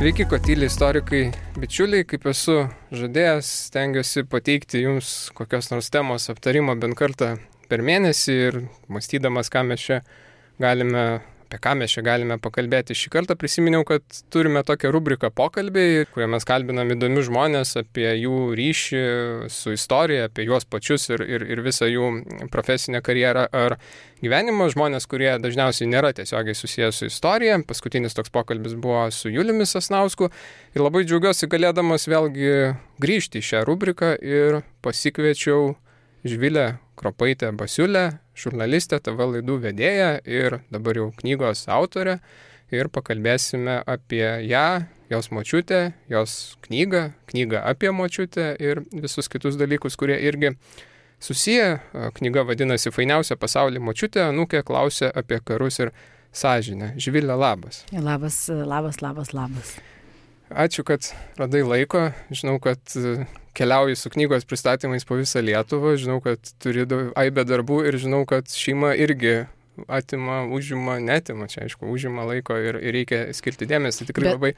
Sveiki, Kotyli istorikai, bičiuliai, kaip esu žadėjęs, stengiuosi pateikti jums kokios nors temos aptarimo bent kartą per mėnesį ir mąstydamas, apie ką mes čia galime pakalbėti. Šį kartą prisiminiau, kad turime tokią rubriką pokalbiai, kurioje mes kalbinam įdomius žmonės apie jų ryšį su istorija, apie juos pačius ir visą jų profesinę karjerą ar gyvenimą. Žmonės, kurie dažniausiai nėra tiesiogiai susijęs su istorija. Paskutinis toks pokalbis buvo su Juliumi Sasnausku ir labai džiaugiuosi galėdamas vėlgi grįžti į šią rubriką ir pasikviečiau Živilę Kropaitę-Basiulę, žurnalistę, TV laidų vedėją ir dabar jau knygos autorę ir pakalbėsime apie ją, jos močiutę, jos knygą apie močiutę ir visus kitus dalykus, kurie irgi susiję. Knyga vadinasi Fainiausia pasaulyje močiutė, anūkė klausia apie karus ir sąžinę. Živilė, labas. Labas. Ačiū, kad radai laiko. Žinau, kad keliauji su knygos pristatymais po visą Lietuvą. Žinau, kad turi aibę darbų ir žinau, kad šeima irgi užima laiko ir reikia skirti dėmesį. Tikrai labai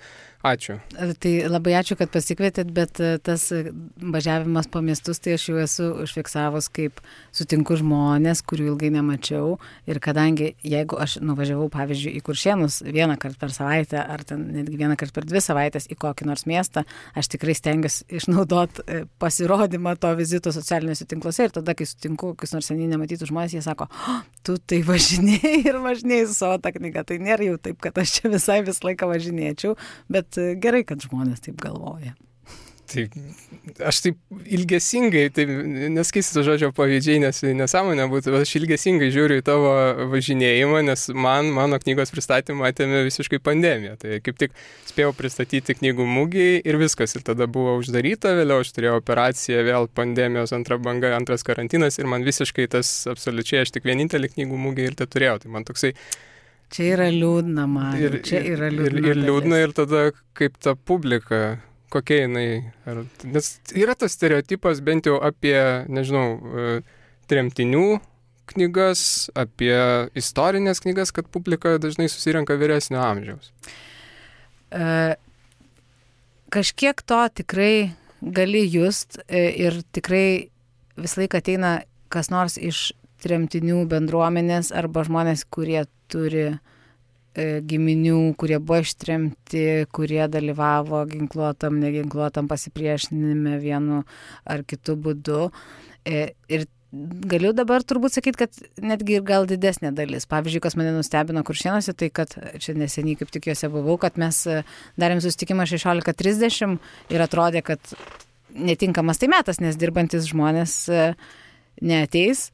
ačiū. Tai labai ačiū, kad pasikvietėt, bet tas važiavimas po miestus, tai aš jau esu užfiksavus, kaip sutinku žmonės, kurių ilgai nemačiau. Ir kadangi, jeigu aš nuvažiavau, pavyzdžiui, į Kuršėnus vieną kartą per savaitę, ar ten netgi vieną kartą per 2 savaitės į kokį nors miestą, aš tikrai stengiuosi išnaudoti pasirodymą to vizito socialiniuose tinkluose. Ir tada, kai sutinku kokius nors seniai nematytus žmonės, jie sako, tu tai važinėjai su savo tą knygą. Tai nėra jau taip, kad aš čia visą laiką važinėčiau, bet gerai, kad žmonės taip galvoja. Tai aš taip ilgesingai, neskaistysiu to žodžio pavydžiai, nes nesąmonė būtų, bet aš ilgesingai žiūriu į tavo važinėjimą, nes mano knygos pristatymą atėmė visiškai pandemija. Tai kaip tik spėjau pristatyti knygų mugėj ir viskas. Ir tada buvo uždaryta, vėliau aš turėjau operaciją, vėl pandemijos antra banga, antras karantinas ir man visiškai tas absoliučiai, aš tik vienintelį knygų mugėj ir tai turėjau. Tai man toksai... Čia yra liūdna, man. Ir liūdna ir tada kaip ta publika... Kokia jinai, nes yra tas stereotipas bent jau apie, tremtinių knygas, apie istorinės knygas, kad publika dažnai susirenka vyresnio amžiaus. Kažkiek to tikrai gali just ir tikrai visą laiką ateina kas nors iš tremtinių bendruomenės arba žmonės, kurie turi giminių, kurie buvo ištremti, kurie dalyvavo ginkluotam, neginkluotam pasipriešinime vienu ar kitu būdu. Ir galiu dabar turbūt sakyti, kad netgi ir gal didesnė dalis. Pavyzdžiui, kas mane nustebino Kuršėnuose, tai kad čia neseniai kaip tik juose buvau, kad mes darėm susitikimą 16:30 ir atrodė, kad netinkamas tai metas, nes dirbantis žmonės neateis.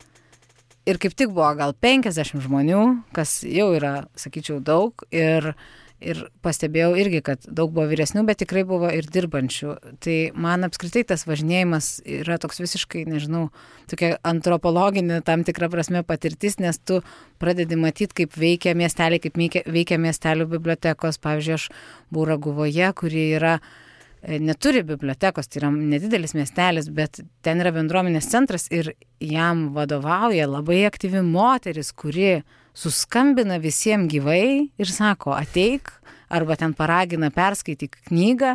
Ir kaip tik buvo gal 50 žmonių, kas jau yra, sakyčiau, daug. Ir pastebėjau irgi, kad daug buvo vyresnių, bet tikrai buvo ir dirbančių. Tai man apskritai tas važinėjimas yra toks visiškai, tokia antropologinė tam tikra prasme patirtis, nes tu pradedi matyti, kaip veikia miesteliai, kaip veikia miestelių bibliotekos. Pavyzdžiui, aš buvau Raguvoje, kuri neturi bibliotekos, tai yra nedidelis miestelis, bet ten yra bendruomenės centras ir jam vadovauja labai aktyvi moteris, kuri suskambina visiems gyvai ir sako, ateik, arba ten paragina perskaityk knygą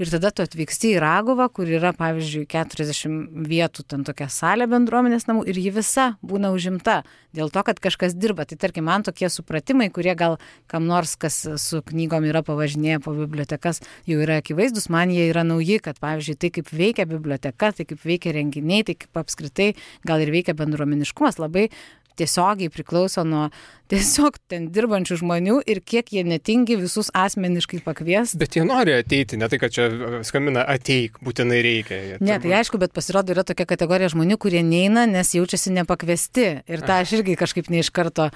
ir tada tu atvyksti į Raguvą, kur yra, pavyzdžiui, 40 vietų, ten tokia salė bendruomenės namų ir ji visa būna užimta dėl to, kad kažkas dirba. Tai tarkim, man tokie supratimai, kurie gal kam nors, kas su knygom yra pavažinėję po bibliotekas, jau yra akivaizdus, man jie yra nauji, kad, pavyzdžiui, tai kaip veikia biblioteka, tai kaip veikia renginiai, tai kaip apskritai gal ir veikia bendruomeniškumas, labai tiesiogiai priklauso nuo tiesiog ten dirbančių žmonių ir kiek jie netingi visus asmeniškai pakvies. Bet jie nori ateiti, ne tai, kad čia skambina ateik, būtinai reikia. Ne, tai aišku, bet pasirodo yra tokia kategorija žmonių, kurie neina, nes jaučiasi nepakviesti. Ir tą aš irgi kažkaip ne iš karto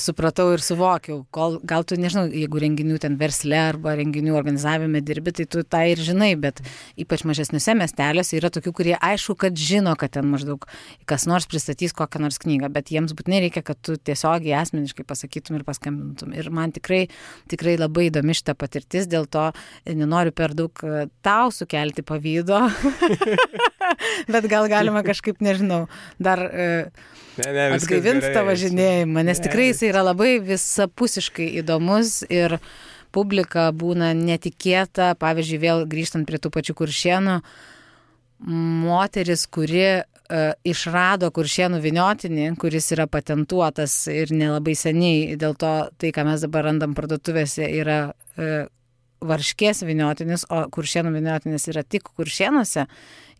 supratau ir suvokiau. Gal tu, jeigu renginių ten versle arba renginių organizavime dirbi, tai tu tą ir žinai, bet ypač mažesniuose miesteliuose yra tokių, kurie aišku, kad žino, kad ten maždaug kas nors pristatys kokią nors knygą, bet jiems būtinai reikia, kad tu tiesiogiai asmeniškai pasakytum ir paskambintum. Ir man tikrai labai įdomi šita patirtis, dėl to nenoriu per daug tau sukelti pavydo, bet gal galima kažkaip, dar atgaivinti tą važinėjimą, nes tikrai jis yra labai visapusiškai įdomus ir publika būna netikėta. Pavyzdžiui, vėl grįžtant prie tų pačių Kuršėnų, moteris, kuri išrado Kuršėnų vyniotinį, kuris yra patentuotas ir nelabai seniai, dėl to tai, ką mes dabar randam parduotuvėse, yra Varškės vyniotinis, o Kuršėnų vyniotinis yra tik Kuršėnuose.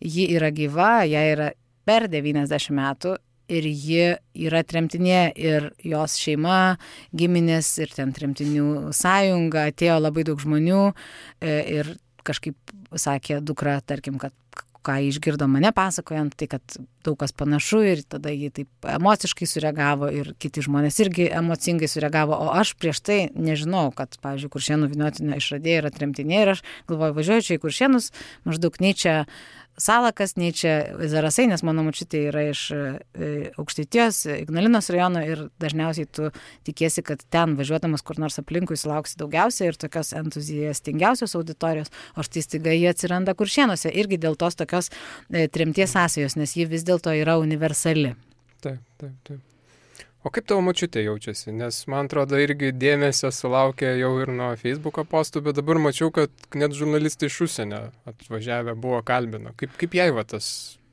Ji yra gyva, jai yra per 90 metų ir ji yra tremtinė ir jos šeima, giminės ir ten tremtinių sąjunga, atėjo labai daug žmonių ir kažkaip sakė dukra, tarkim, kad ką išgirdo mane pasakojant, tai kad daug kas panašu ir tada jį taip emociškai sureagavo ir kiti žmonės irgi emocingai sureagavo, o aš prieš tai nežinau, kad, pavyzdžiui, Kuršėnų vyniotinio išradėja yra tremtinė ir aš galvoju, važiuoju čia į Kuršėnus, maždaug nei čia Salakas, nei čia Zarasai, nes mano močiutė yra iš Aukštaitijos, Ignalinos rajono ir dažniausiai tu tikiesi, kad ten važiuodamas kur nors aplinkui sulauksi daugiausiai ir tokios entuziastingiausios auditorijos, o štai staiga jie atsiranda Kuršėnuose irgi dėl tos tokios tremties sąsajos, nes ji vis dėlto yra universali. Taip. O kaip tavo močiutė jaučiasi? Nes man atrodo irgi dėmesio sulaukė jau ir nuo Facebook'o postų, bet dabar mačiau, kad net žurnalistai iš užsienio atvažiavę buvo kalbino. Kaip jai va tas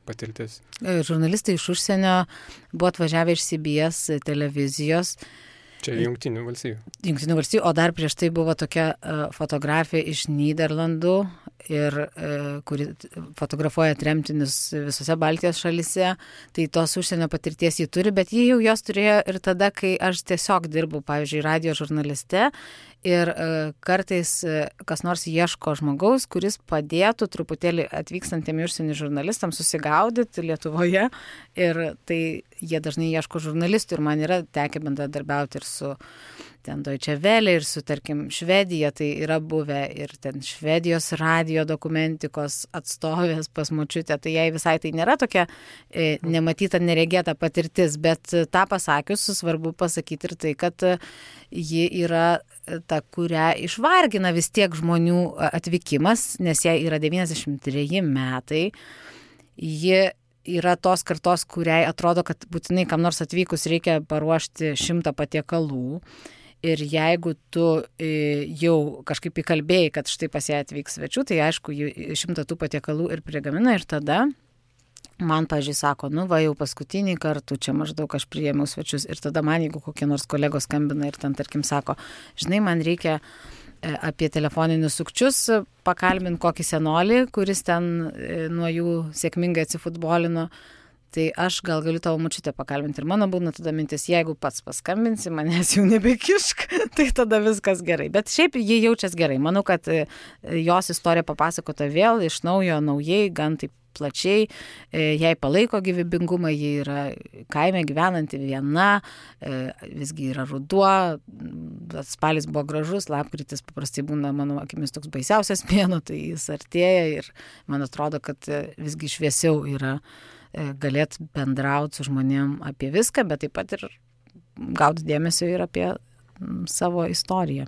patirtis? Žurnalistai iš užsienio buvo atvažiavę iš CBS televizijos. Čia Jungtinių valstijų. O dar prieš tai buvo tokia fotografija iš Nyderlandų, kuri fotografuoja tremtinius visose Baltijos šalyse. Tai tos užsienio patirties jį turi, bet jį jau jos turėjo ir tada, kai aš tiesiog dirbau, pavyzdžiui, radijo žurnaliste. Ir kartais kas nors ieško žmogaus, kuris padėtų truputėlį atvykstantiem užsienio žurnalistams susigaudyti Lietuvoje. Ir tai jie dažnai ieško žurnalistų ir man yra tekę bendradarbiauti ir su ten Deutsche Welle ir su, tarkim, Švedija. Tai yra buvę ir ten Švedijos radijo dokumentikos atstovės pas močiutę. Tai jai visai tai nėra tokia nematyta, neregėta patirtis, bet tą pasakius, svarbu pasakyti ir tai, kad ji yra ta, kurią išvargina vis tiek žmonių atvykimas, nes jai yra 93 metai. Ji yra tos kartos, kuriai atrodo, kad būtinai kam nors atvykus reikia paruošti 100 patiekalų. Ir jeigu tu jau kažkaip įkalbėjai, kad štai pas ją atvyks svečių, tai aišku, 100 tų patiekalų ir prigamina ir tada man, pažiūrėjau, sako, va jau paskutinį kartą čia maždaug aš priėmiau svečius ir tada man, jeigu kokie nors kolegos skambina ir ten, tarkim, sako, žinai, man reikia apie telefoninius sukčius pakalbinti kokį senolį, kuris ten nuo jų sėkmingai atsifutbolino, tai aš gal galiu tavo močiutę pakalbinti. Ir mano būna tada mintis, jeigu pats paskambinsi, manęs jau nebekišk, tai tada viskas gerai. Bet šiaip jie jaučiasi gerai. Manau, kad jos istorija papasakota vėl iš naujo, naujai, gan taip plačiai, jai palaiko gyvybingumą, ji yra kaime gyvenanti viena, visgi yra ruduo, spalis buvo gražus, lapkritis paprastai būna, mano akimis, toks baisiausias mėnuo, tai jis artėja ir man atrodo, kad visgi šviesiau yra galėt bendrauti su žmonėm apie viską, bet taip pat ir gauti dėmesio ir apie savo istoriją.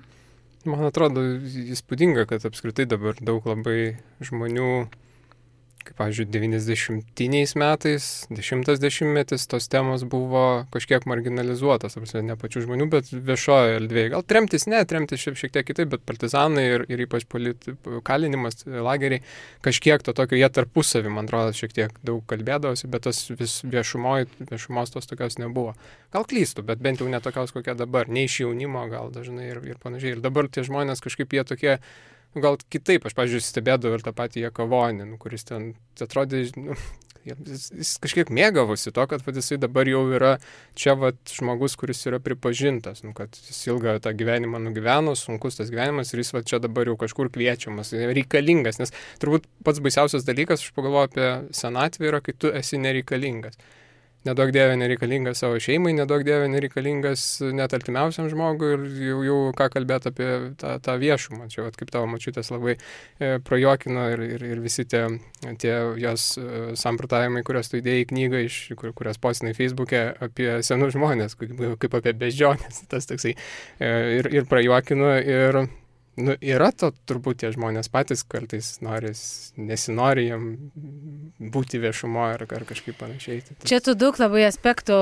Man atrodo įspūdinga, kad apskritai dabar daug labai žmonių, kaip, pavyzdžiui, 90-iniais metais, 10-metis, tos temos buvo kažkiek marginalizuotas, ne pačių žmonių, bet viešoje erdvėje. Gal tremtis šiek tiek kitaip, bet partizanai ir ypač kalinimas, lageriai, kažkiek to tokio, jie tarpusavį, man atrodo, šiek tiek daug kalbėdavosi, bet tas viešumos tos tokios nebuvo. Gal klystu, bet bent jau netokios kokia dabar, ne iš jaunimo gal dažnai ir panašiai. Ir dabar tie žmonės kažkaip jie tokie, gal kitaip, aš, pavyzdžiui, stebėdavau ir tą patį Jakavonį, kuris ten atrodė, jis kažkiek mėgavosi to, kad jisai dabar jau yra čia žmogus, kuris yra pripažintas, kad jis ilgą tą gyvenimą nugyveno, sunkus tas gyvenimas ir jis čia dabar jau kažkur kviečiamas, reikalingas, nes turbūt pats baisiausias dalykas, aš pagalvoju apie senatvę, yra, kai tu esi nereikalingas. Nedaug dievė nereikalingas savo šeimai, nedaug dievė nereikalingas net artimiausiam žmogui ir jau ką kalbėti apie tą viešumą. Čia kaip tavo močiutės labai prajuokino ir visi tie jos samprotavimai, kurios tu įdėjai į knygą, kurias postinai Facebook'e apie senus žmonės, kaip apie beždžionės, tas toksai ir prajuokino ir yra to turbūt tie žmonės patys kartais nesinori jam būti viešumoje ar kažkaip panašiai. Čia tu daug labai aspektų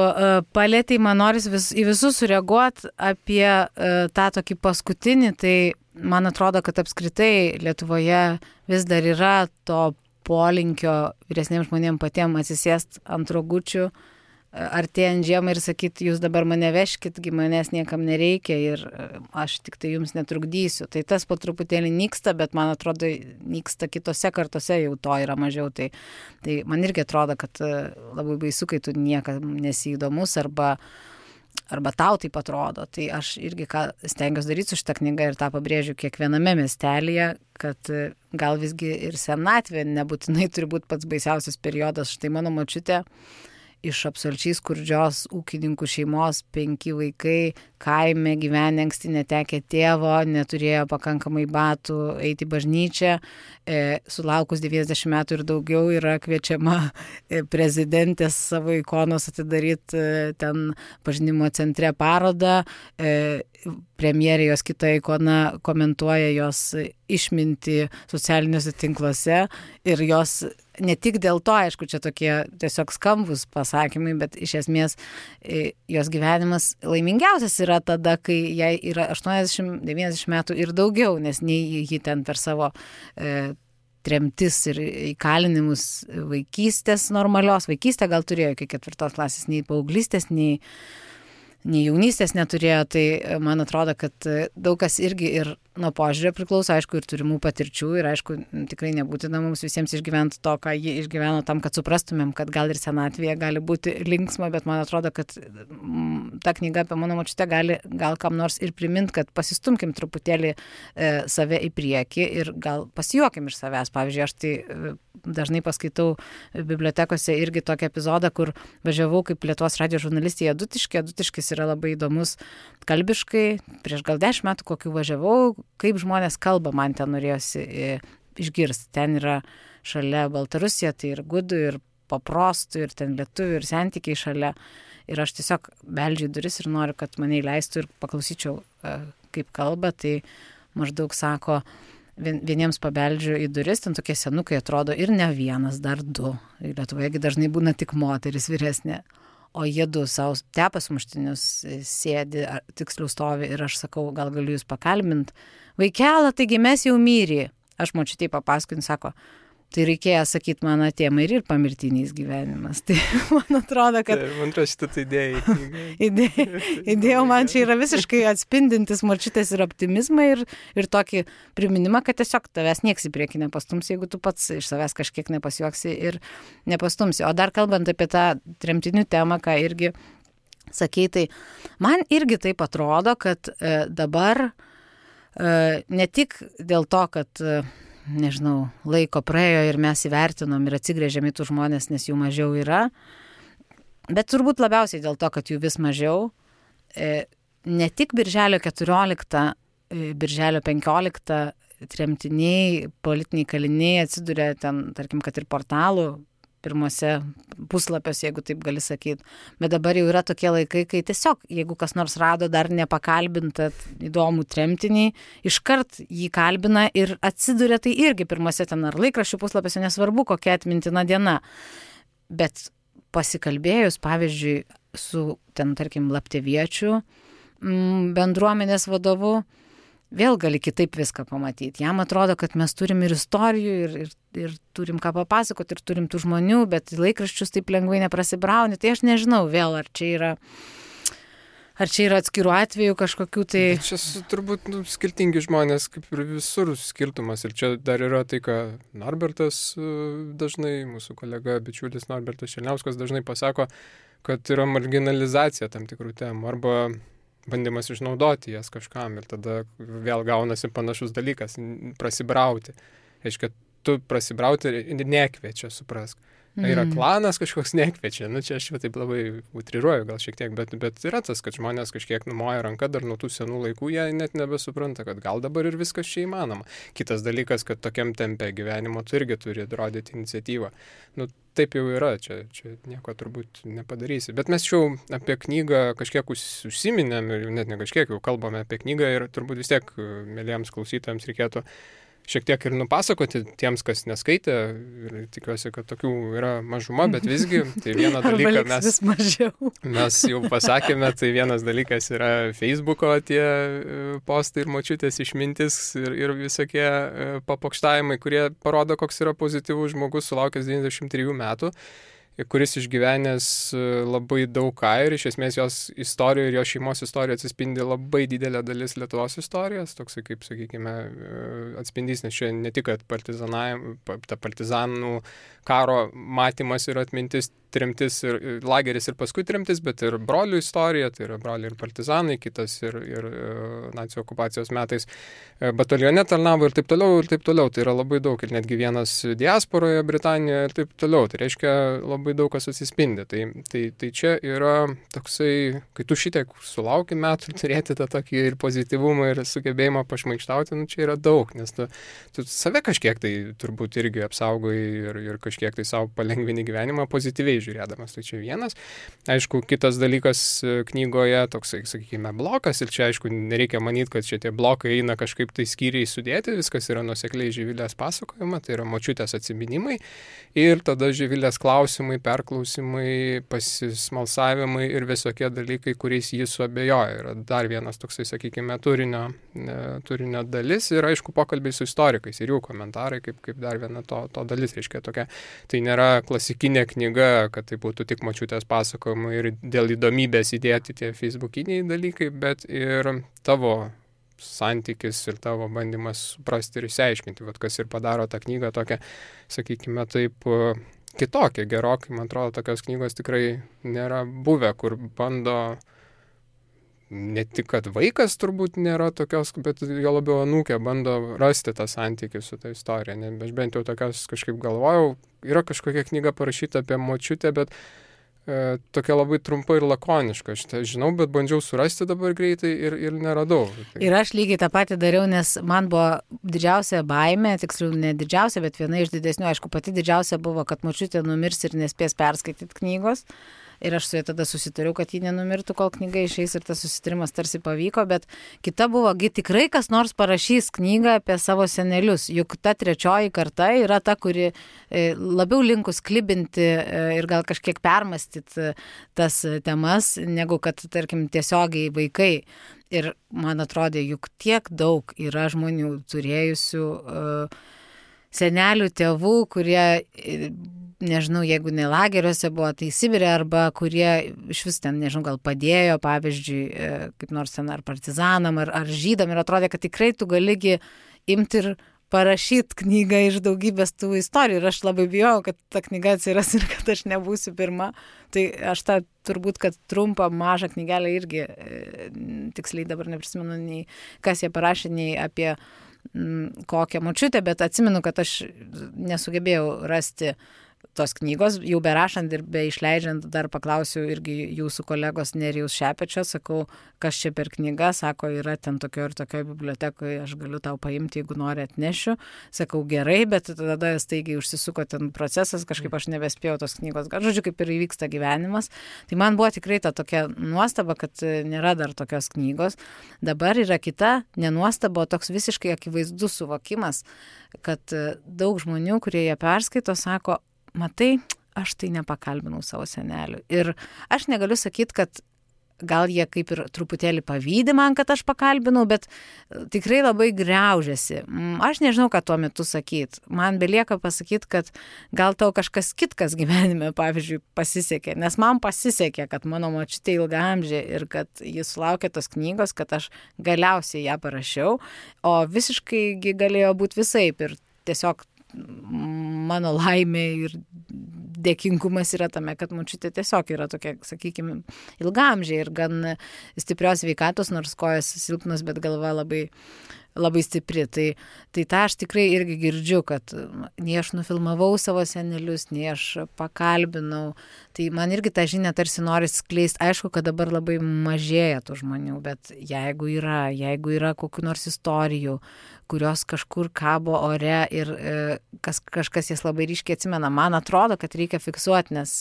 palėtei, man noris į visus sureaguoti apie tą tokį paskutinį, tai man atrodo, kad apskritai Lietuvoje vis dar yra to polinkio vyresniems žmonėms patiems atsisėsti ant rogučių, artėjant žiemą ir sakyti, jūs dabar mane veškit, manęs niekam nereikia ir aš tik tai jums netrukdysiu. Tai tas po truputėlį nyksta, bet man atrodo, nyksta kitose kartose jau to yra mažiau. Tai man irgi atrodo, kad labai baisu, kai tu niekam nesiįdomus arba tau taip atrodo. Tai aš irgi stengiuosi daryti su šitą knygą ir tą pabrėžiu kiekviename miestelėje, kad gal visgi ir senatvė nebūtinai turi būti pats baisiausias periodas. Štai mano močiutė iš absoliučiai skurdžios ūkininkų šeimos, 5 vaikai, kaime gyvenę anksti netekę tėvo, neturėjo pakankamai batų eiti į bažnyčią, sulaukus 90 metų ir daugiau yra kviečiama prezidentės savo ikonos atidaryti ten pažinimo centre parodą, premjerė jos kita ikona komentuoja jos išmintį socialiniuose tinkluose ir jos ne tik dėl to, aišku, čia tokie tiesiog skambus pasakymai, bet iš esmės jos gyvenimas laimingiausias yra tada, kai jai yra 80-90 metų ir daugiau, nes nei ji ten per savo tremtis ir įkalinimus vaikystės normalios, vaikystę gal turėjo iki 4 klasės, nei paauglystės, nei jaunystės neturėjo, tai man atrodo, kad daug kas irgi ir nuo požiūrio priklauso, aišku, ir turimų patirčių ir aišku, tikrai nebūtina mums visiems išgyventi to, ką jie išgyveno tam, kad suprastumėm, kad gal ir senatvėje gali būti linksma, bet man atrodo, kad ta knyga apie mano močiutę gal kam nors ir primint, kad pasistumkim truputėlį save į priekį ir gal pasijuokim iš savęs. Pavyzdžiui, aš tai dažnai paskaitau bibliotekose irgi tokį epizodą, kur važiavau kaip Lietuvos radijo žurnalistė į Adutiškį. Adutiškis yra labai įdomus kalbiškai. Prieš gal 10 metų kokių važiavau, kaip žmonės kalba, man ten norėjosi išgirsti. Ten yra šalia Baltarusija, tai ir gudų, ir paprostų, ir ten lietuvių, ir santykiai šalia. Ir aš tiesiog beldžiu duris ir noriu, kad mane įleistų ir paklausyčiau, kaip kalba. Tai maždaug sako, vieniems pabeldžiu į duris, ten tokie senukai atrodo ir ne vienas, dar 2. Lietuvoje dažnai būna tik moteris vyresnė. O jie 2 savo tepa sumuštinius sėdi, tiksliau stovi ir aš sakau, gal galiu jūs pakalbint. Vaikelą, taigi mes jau myri. Aš močiutei papasakojau, sako, tai reikėjo sakyti, man atėmai ir pamirtinys gyvenimas. Tai man atrodo, kad... Man atrodo, šitą idėja man čia yra visiškai atspindintis močiutės ir optimizmą ir tokį priminimą, kad tiesiog tavęs nieks į priekį nepastums, jeigu tu pats iš savęs kažkiek nepasijuoksi ir nepastumsi. O dar kalbant apie tą tremtinių temą, ką irgi sakei, tai man irgi taip atrodo, kad dabar ne tik dėl to, kad nežinau, laiko praėjo ir mes įvertinom ir atsigrėžėm į tų žmonės, nes jų mažiau yra. Bet turbūt labiausiai dėl to, kad jų vis mažiau. Ne tik birželio 14, birželio 15 tremtiniai, politiniai kaliniai atsiduria ten, tarkim, kad ir portalų pirmose puslapiuose, jeigu taip gali sakyti. Bet dabar jau yra tokie laikai, kai tiesiog, jeigu kas nors rado dar nepakalbintą įdomų tremtinį, iškart jį kalbina ir atsiduria tai irgi pirmose ten ar laikraščių puslapiuose, nesvarbu, kokia atmintina diena. Bet pasikalbėjus, pavyzdžiui, su ten, tarkim, Lapteviečių bendruomenės vadovu, vėl gali kitaip viską pamatyti. Jam atrodo, kad mes turim ir istorijų, ir turim ką papasakoti, ir turim tų žmonių, bet laikraščius taip lengvai neprasibrauni. Tai aš nežinau vėl, ar čia yra atskirų atvejų kažkokių tai... Čia turbūt skirtingi žmonės, kaip ir visur skirtumas. Ir čia dar yra tai, ką Norbertas dažnai, mūsų kolega, bičiulis Norbertas Černiauskas dažnai pasako, kad yra marginalizacija tam tikrų temų, arba bandymas išnaudoti jas kažkam ir tada vėl gaunasi panašus dalykas - prasibrauti. Reiškia, tu prasibrauti ir nekviečia, suprask. Yra klanas kažkoks nekviečia. Čia aš taip labai utriruoju gal šiek tiek, bet yra tas, kad žmonės kažkiek numoja ranką dar nuo tų senų laikų, jie net nebesupranta, kad gal dabar ir viskas čia įmanoma. Kitas dalykas, kad tokiam tempe gyvenimo tu irgi turi rodyti iniciatyvą. Taip jau yra, čia nieko turbūt nepadarysi. Bet mes jau apie knygą kažkiek užsiminėm ir net ne kažkiek jau kalbame apie knygą ir turbūt vis tiek mėlyjams klausytojams reikėtų šiek tiek ir nupasakoti tiems, kas neskaitė, ir tikiuosi, kad tokių yra mažuma, bet visgi, tai vieną dalyką mes jau pasakėme, tai vienas dalykas yra Facebooko tie postai ir močiutės išmintis ir visokie papokštavimai, kurie parodo, koks yra pozityvus žmogus sulaukęs 93 metų, kuris išgyvenęs labai daug ką ir iš esmės jos istorijoje ir jo šeimos istorijoje atsispindi labai didelė dalis Lietuvos istorijos, toksai kaip, sakykime, atspindys, nes čia ne tik, kad partizanų karo matymas ir atmintis, tremtis ir lageris ir paskui tremtis, bet ir brolių istorija, tai yra broliai ir partizanai, kitas ir nacių okupacijos metais batalione tarnavo ir taip toliau, ir taip toliau. Tai yra labai daug ir netgi vienas diasporoje Britanijoje ir taip toliau. Tai reiškia labai daug kas atsispindi. Tai čia yra toksai, kai tu šitiek sulauki metų turėti tą tokį ir pozityvumą ir sugebėjimą pašmaikštauti, čia yra daug, nes tu save kažkiek tai turbūt irgi apsaugai ir kažkiek tai savo palengvini gyvenimą pozityviai žiūrėdamas. Tai čia vienas. Aišku, kitas dalykas knygoje toksai, sakykime, blokas ir čia, aišku, nereikia manyti, kad čia tie blokai eina kažkaip tai skyriai sudėti, viskas yra nuosekliai Živilės pasakojama, tai yra močiutės atsiminimai ir tada Živilės klausimai, perklausimai, pasismalsavimai ir visokie dalykai, kuriais jis suabejoja. Yra dar vienas toksai, sakykime, turinio dalis ir, aišku, pokalbiai su istorikais ir jų komentarai, kaip dar viena to dalis, reiškia tokia. Tai nėra klasikinė knyga, kad tai būtų tik močiutės pasakojimai ir dėl įdomybės įdėti tie facebookiniai dalykai, bet ir tavo santykis ir tavo bandymas suprasti ir išsiaiškinti, kas ir padaro tą knygą tokią, sakykime, taip kitokią, gerokai, man atrodo, tokios knygos tikrai nėra buvę, kur bando ne tik, kad vaikas turbūt nėra tokios, bet jo labiau anūkė bando rasti tą santykį su ta istorija. Aš bent jau tokios kažkaip galvojau, yra kažkokia knyga parašyta apie močiutę, bet tokia labai trumpa ir lakoniška. Aš tai žinau, bet bandžiau surasti dabar greitai ir neradau. Ir aš lygiai tą patį dariau, nes man buvo didžiausia baimė, tiksliau ne didžiausia, bet viena iš didesnių, aišku, pati didžiausia buvo, kad močiutė numirs ir nespės perskaityti knygos. Ir aš su ja tada susitariau, kad ji nenumirtų, kol knyga išeis ir tas susitarimas tarsi pavyko, bet kita buvo, tikrai kas nors parašys knygą apie savo senelius, juk ta trečioji karta yra ta, kuri labiau linkus klibinti ir gal kažkiek permastyti tas temas, negu kad, tarkim, tiesiogiai vaikai. Ir man atrodė, juk tiek daug yra žmonių turėjusių senelių, tėvų, kurie, nežinau, jeigu ne lageriuose buvo, tai Sibire, arba kurie iš vis ten, nežinau, gal padėjo, pavyzdžiui, kaip nors ten ar partizanam, ar žydam, ir atrodė, kad tikrai tu galigi imti ir parašyti knygą iš daugybės tų istorijų. Ir aš labai bijau, kad ta knyga atsiras ir kad aš nebūsiu pirma. Tai aš tą turbūt, kad trumpą, mažą knygelę irgi tiksliai dabar neprisimenu nei kas jie parašė, nei apie kokią močiutę, bet atsimenu, kad aš nesugebėjau rasti tos knygos, jau berašant ir be išleidžiant, dar paklausiu irgi jūsų kolegos Nerijaus Šepečio, sakau, kas čia per knyga, sako, yra ten tokio ir tokio bibliotekoje, aš galiu tau paimti, jeigu nori atnešiu, sakau, gerai, bet tada staigiai užsisuko ten procesas, kažkaip aš nebespėjau tos knygos, žodžiu, kaip ir įvyksta gyvenimas, tai man buvo tikrai ta tokia nuostaba, kad nėra dar tokios knygos. Dabar yra kita nenuostaba, toks visiškai akivaizdus suvokimas, kad daug žmonių, kurie ją perskaito, sako, matai, aš tai nepakalbinau savo senelių. Ir aš negaliu sakyti, kad gal jie kaip ir truputėlį pavydi man, kad aš pakalbinau, bet tikrai labai griaužiasi. Aš nežinau, ką tuo metu sakyti. Man belieka pasakyti, kad gal tau kažkas kitkas gyvenime, pavyzdžiui, pasisekė. Nes man pasisekė, kad mano močiutė ilgaamžė ir kad jis sulaukė tos knygos, kad aš galiausiai ją parašiau. O visiškai galėjo būti visaip. Ir tiesiog mano laimė ir dėkingumas yra tame, kad močiutė tiesiog yra tokia, sakykime, ilgaamžė ir gan stiprios sveikatos, nors kojas silpnos, bet galva labai, labai stipri. Tai tą aš tikrai irgi girdžiu, kad nei aš nufilmavau savo senelius, nei aš pakalbinau. Tai man irgi tą žinią tarsi nori skleisti. Aišku, kad dabar labai mažėja tų žmonių, bet jeigu yra kokių nors istorijų, kurios kažkur kabo ore ir kažkas jas labai ryškiai atsimena, man atrodo, kad reikia fiksuoti, nes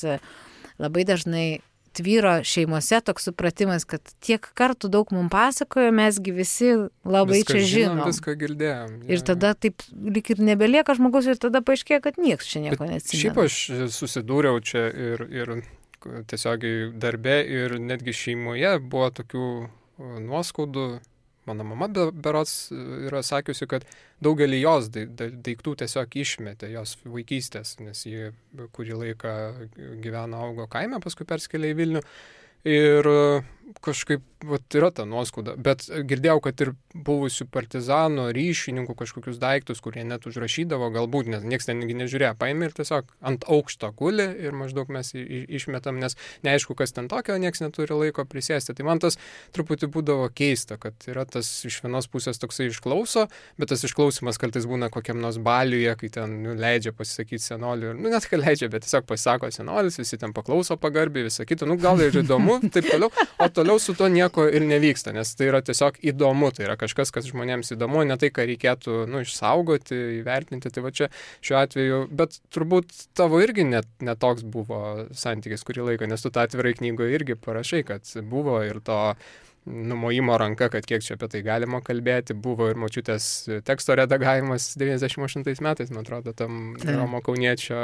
labai dažnai tvyro šeimose toks supratimas, kad tiek kartų daug mums pasakojo, mesgi visi labai viską čia žinom. Viską girdėjom. Ir tada taip lyg ir nebelieka žmogus ir tada paaiškėja, kad niekas čia nieko neatsimena. Šiaip aš susidūriau čia ir tiesiogiai darbe ir netgi šeimoje buvo tokių nuoskaudų. Mano mama berods yra sakiusi, kad daugelį jos daiktų tiesiog išmetė jos vaikystės, nes ji kurį laiką gyveno, augo kaime, paskui perskėlė į Vilnių. Ir kažkaip yra ta nuoskauda. Bet girdėjau, kad ir buvusių partizanų, ryšininkų kažkokius daiktus, kurie net užrašydavo, galbūt, nes niekas ten nežiūrėjo, paėmė ir tiesiog ant aukšto guli ir maždaug mes išmetam, nes neaišku, kas ten tokio, niekas neturi laiko prisėsti. Tai man tas truputį būdavo keista, kad yra tas iš vienos pusės toksai išklauso, bet tas išklausimas kartais būna kokiam nors baliuje, kai ten leidžia pasisakyti senolių. Net kai leidžia, bet tiesiog pasisako senolis, visi ten paklauso pagarbiai, visą kitą. Gal ir įdomu, taip toliau. O toliau su to nieko ir nevyksta, nes tai yra tiesiog įdomu, tai yra kažkas, kas žmonėms įdomu, ne tai, ką reikėtų išsaugoti, įvertinti, tai va čia šiuo atveju, bet turbūt tavo irgi netoks buvo santykis kurį laiką, nes tu tą atvirai knygoje irgi parašai, kad buvo ir to numojimo ranka, kad kiek čia apie tai galima kalbėti, buvo ir močiutės teksto redagavimas 98 metais, man atrodo, tam Romo Kauniečio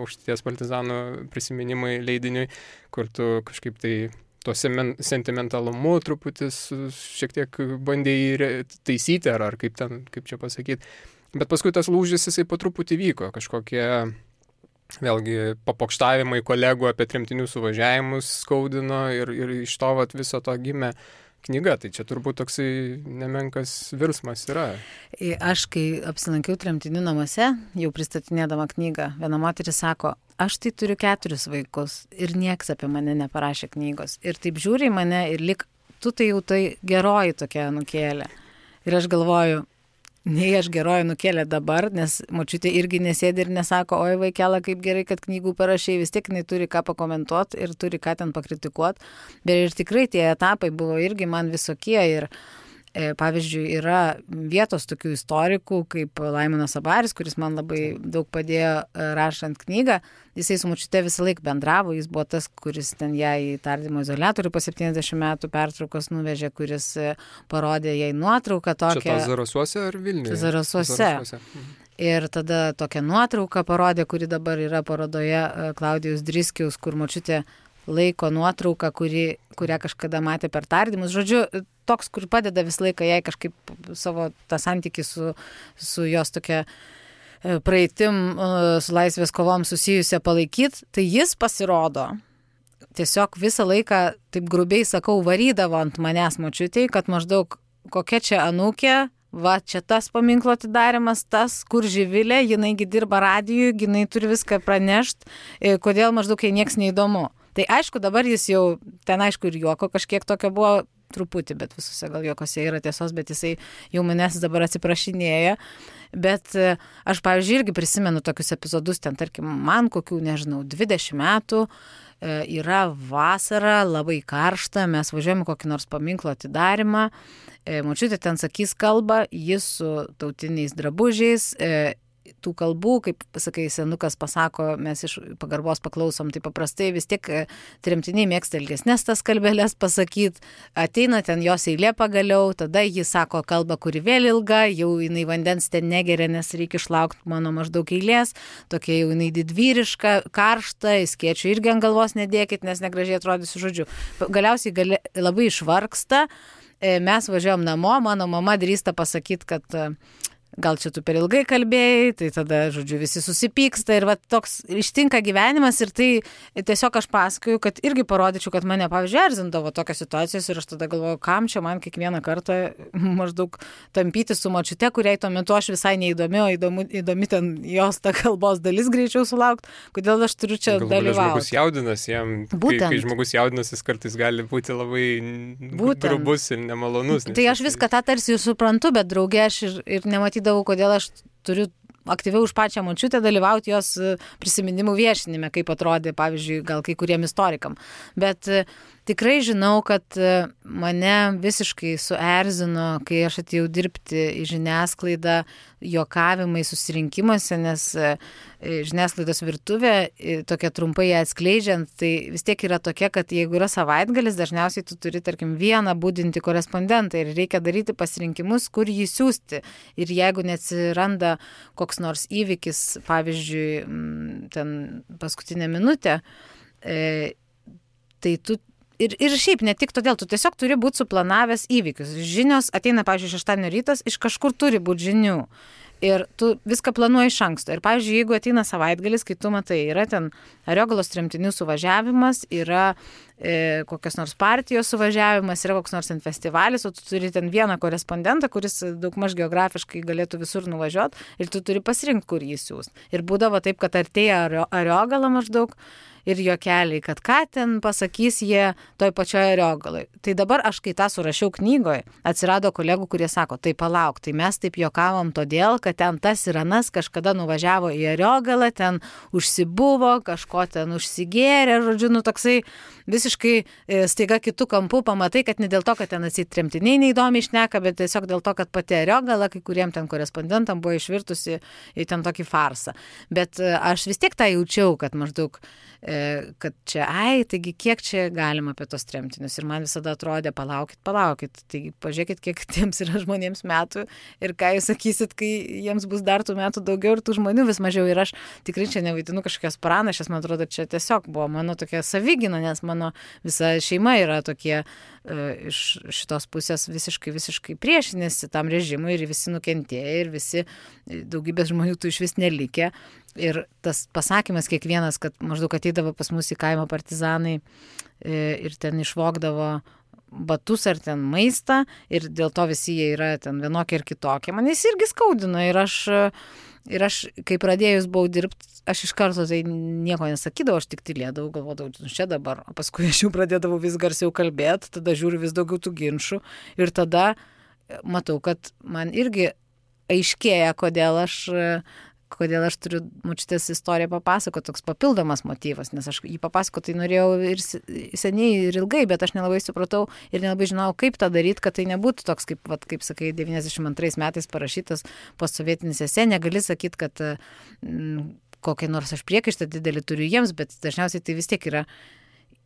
Aukštaitijos partizanų prisiminimai leidiniui, kur tu kažkaip tai tuo sentimentalumu truputį šiek tiek bandėjai taisyti, ar kaip čia pasakyti. Bet paskui tas lūžis jisai po truputį vyko, kažkokie vėlgi papokštavimai kolegų apie tremtinių suvažiavimus skaudino ir iš to viso to gimė knyga. Tai čia turbūt toksai nemenkas virsmas yra. Aš, kai apsilankiau tremtinių namuose, jau pristatinėdama knygą, viena moteris sako, aš tai turiu 4 vaikus ir nieks apie mane neparašė knygos. Ir taip žiūri į mane ir lik, tu tai jau tai geroji tokia nukėlė. Ir aš galvoju, nei aš geroji nukėlė dabar, nes močiutė irgi nesėdi ir nesako, oi vaikela, kaip gerai, kad knygų parašai, vis tiek jinai turi ką pakomentuoti ir turi ką ten pakritikuoti. Bet ir tikrai tie etapai buvo irgi man visokie ir pavyzdžiui, yra vietos tokių istorikų, kaip Laimonas Abaris, kuris man labai daug padėjo rašant knygą. Jisai su močiute visą laiką bendravo, jis buvo tas, kuris ten ją į tardymo izoliatorių po 70 metų pertraukos nuvežė, kuris parodė jai nuotrauką tokią. Čia tos Zarasuose ar Vilniuje? Zarasuose. Ir tada tokią nuotrauką parodė, kuri dabar yra parodoje Klaudijaus Driskiaus, kur močiutė laiko nuotrauką, kurią kažkada matė per tardymus. Žodžiu, toks, kur padeda visą laiką jai kažkaip savo tą santykį su jos tokia praeitim, su laisvės kovom susijusią palaikyti, tai jis pasirodo. Tiesiog visą laiką, taip grubiai sakau, varydavo ant manęs močiutei, kad maždaug kokia čia anūkė, va čia tas paminklo atidarimas, tas, kur Živilė, jinaigi dirba radijui, jinai turi viską pranešti, kodėl maždaug jai nieks neįdomu. Tai aišku, dabar jis jau, ten aišku ir juoko kažkiek tokio buvo truputį, bet visose gal juokose yra tiesos, bet jisai jau manęs dabar atsiprašinėja. Bet aš, pavyzdžiui, irgi prisimenu tokius epizodus, ten tarkim, man kokių, nežinau, 20 metų, yra vasara, labai karšta, mes važiuojame kokį nors paminklo atidarimą, močiutė ten sakys kalbą, jis su tautiniais drabužiais, tų kalbų, kaip sakai, senukas pasako, mes iš pagarbos paklausom, tai paprastai vis tiek tremtiniai mėgsta ilgesnės tas kalbelės pasakyti, ateina ten jos eilė pagaliau, tada jis sako kalbą, kuri vėl ilga, jau jinai vandens ten negeria, nes reikia išlaukti mano maždaug eilės, tokia jau jinai didvyriška, karšta, skėčių irgi ant galvos nedėkit, nes negražiai atrodysiu, žodžiu. Galiausiai labai išvargsta, mes važiuojam namo, mano mama drįsta pasakyti, kad gal čia tu per ilgai kalbėjai, tai tada, žodžiu, visi susipyksta ir va toks ištinka gyvenimas ir tai tiesiog aš pasakoju, kad irgi parodyčiau, kad mane, pavyzdžiui, erzindavo tokios situacijos ir aš tada galvoju, kam čia man kiekvieną kartą maždaug tampyti su močiute, kuriai tuo metu aš visai neįdomi, o įdomi ten jos ta kalbos dalis greičiau sulaukti, kodėl aš turiu čia dalyvauti. Žmogus jaudinasi, jam, kai žmogus jaudinasi, jis kartais gali būti labai grubus ir nemalonus. Tai aš viską tą tarsi ir suprantu, bet draugė aš ir nematydavau, kodėl aš turiu aktyviau už pačią močiutę dalyvauti jos prisiminimų viešinime, kaip atrodė, pavyzdžiui, gal kai kuriem istorikam. Bet tikrai žinau, kad mane visiškai suerzino, kai aš atėjau dirbti į žiniasklaidą, juokavimai susirinkimuose, nes žiniasklaidos virtuvė, tokia trumpai atskleidžiant, tai vis tiek yra tokia, kad jeigu yra savaitgalis, dažniausiai tu turi, tarkim, vieną budinti korespondentą ir reikia daryti pasirinkimus, kur jį siūsti. Ir jeigu neatsiranda koks nors įvykis, pavyzdžiui, ten paskutinę minutę, tai tu ir šiaip ne tik todėl, tu tiesiog turi būti suplanavęs įvykius. Žinios ateina, pavyzdžiui, šeštadienio rytas, iš kažkur turi būti žinių. Ir tu viską planuoji iš anksto. Ir, pavyzdžiui, jeigu ateina savaitgalis, kai tu matai, yra ten Ariogalos tremtinių suvažiavimas, yra kokios nors partijos suvažiavimas, yra koks nors ten festivalis, o tu turi ten vieną korespondentą, kuris daugmaž geografiškai galėtų visur nuvažiuoti ir tu turi pasirinkti, kur jį siūs. Ir būdavo taip, kad artėja Ariogala maždaug ir juokeliai, kad ką ten pasakys jie toj pačioje Ariogaloj. Tai dabar aš, kai tą surašiau knygoje, atsirado kolegų, kurie sako, tai palauk, tai mes taip juokavom todėl, kad ten tas ir anas kažkada nuvažiavo į Ariogalą, ten užsibuvo, kažko ten užsigėrė, žodžiu, nu toksai visiškai staiga kitų kampų pamatai, kad ne dėl to, kad ten atsitremtiniai neįdomiai šneka, bet tiesiog dėl to, kad pati Ariogala, kai kuriem ten korespondentam buvo išvirtusi į ten tokį farsą. Bet aš vis tiek tą jaučiau, kad maždaug kad čia, taigi kiek čia galima apie tos tremtinius. Ir man visada atrodė, palaukit, taigi pažiūrėkit, kiek tiems yra žmonėms metų ir ką jūs sakysit, kai jiems bus dar tų metų daugiau ir tų žmonių vis mažiau. Ir aš tikrai čia nevaidinu kažkokias pranašes, man atrodo, čia tiesiog buvo mano tokia savigyna, nes mano visa šeima yra tokie iš šitos pusės visiškai priešinėsi tam režimui ir visi nukentėjo ir visi daugybės žmonių tų iš vis nelikė. Ir tas pasakymas kiekvienas, kad maždaug ateidavo pas mus į kaimo partizanai ir ten išvogdavo batus ar ten maistą ir dėl to visi jie yra ten vienokie ir kitokie. Man jis irgi skaudino ir aš, kai pradėjus buvau dirbti, aš iš karto tai nieko nesakydavau, aš tik tylėdavau, galvodavau, čia dabar, o paskui aš jau pradėdavau vis garsiau kalbėti, tada žiūriu vis daugiau tų ginčių ir tada matau, kad man irgi aiškėja, kodėl aš turiu močiutės istoriją papasakoti, toks papildomas motyvas, nes aš jį papasakoti norėjau ir seniai ir ilgai, bet aš nelabai supratau ir nelabai žinojau, kaip tą daryti, kad tai nebūtų toks, kaip sakai, 92 metais parašytas postsovietinis esė, negali sakyti, kad kokį nors aš priekaištą didelį turiu jiems, bet dažniausiai tai vis tiek yra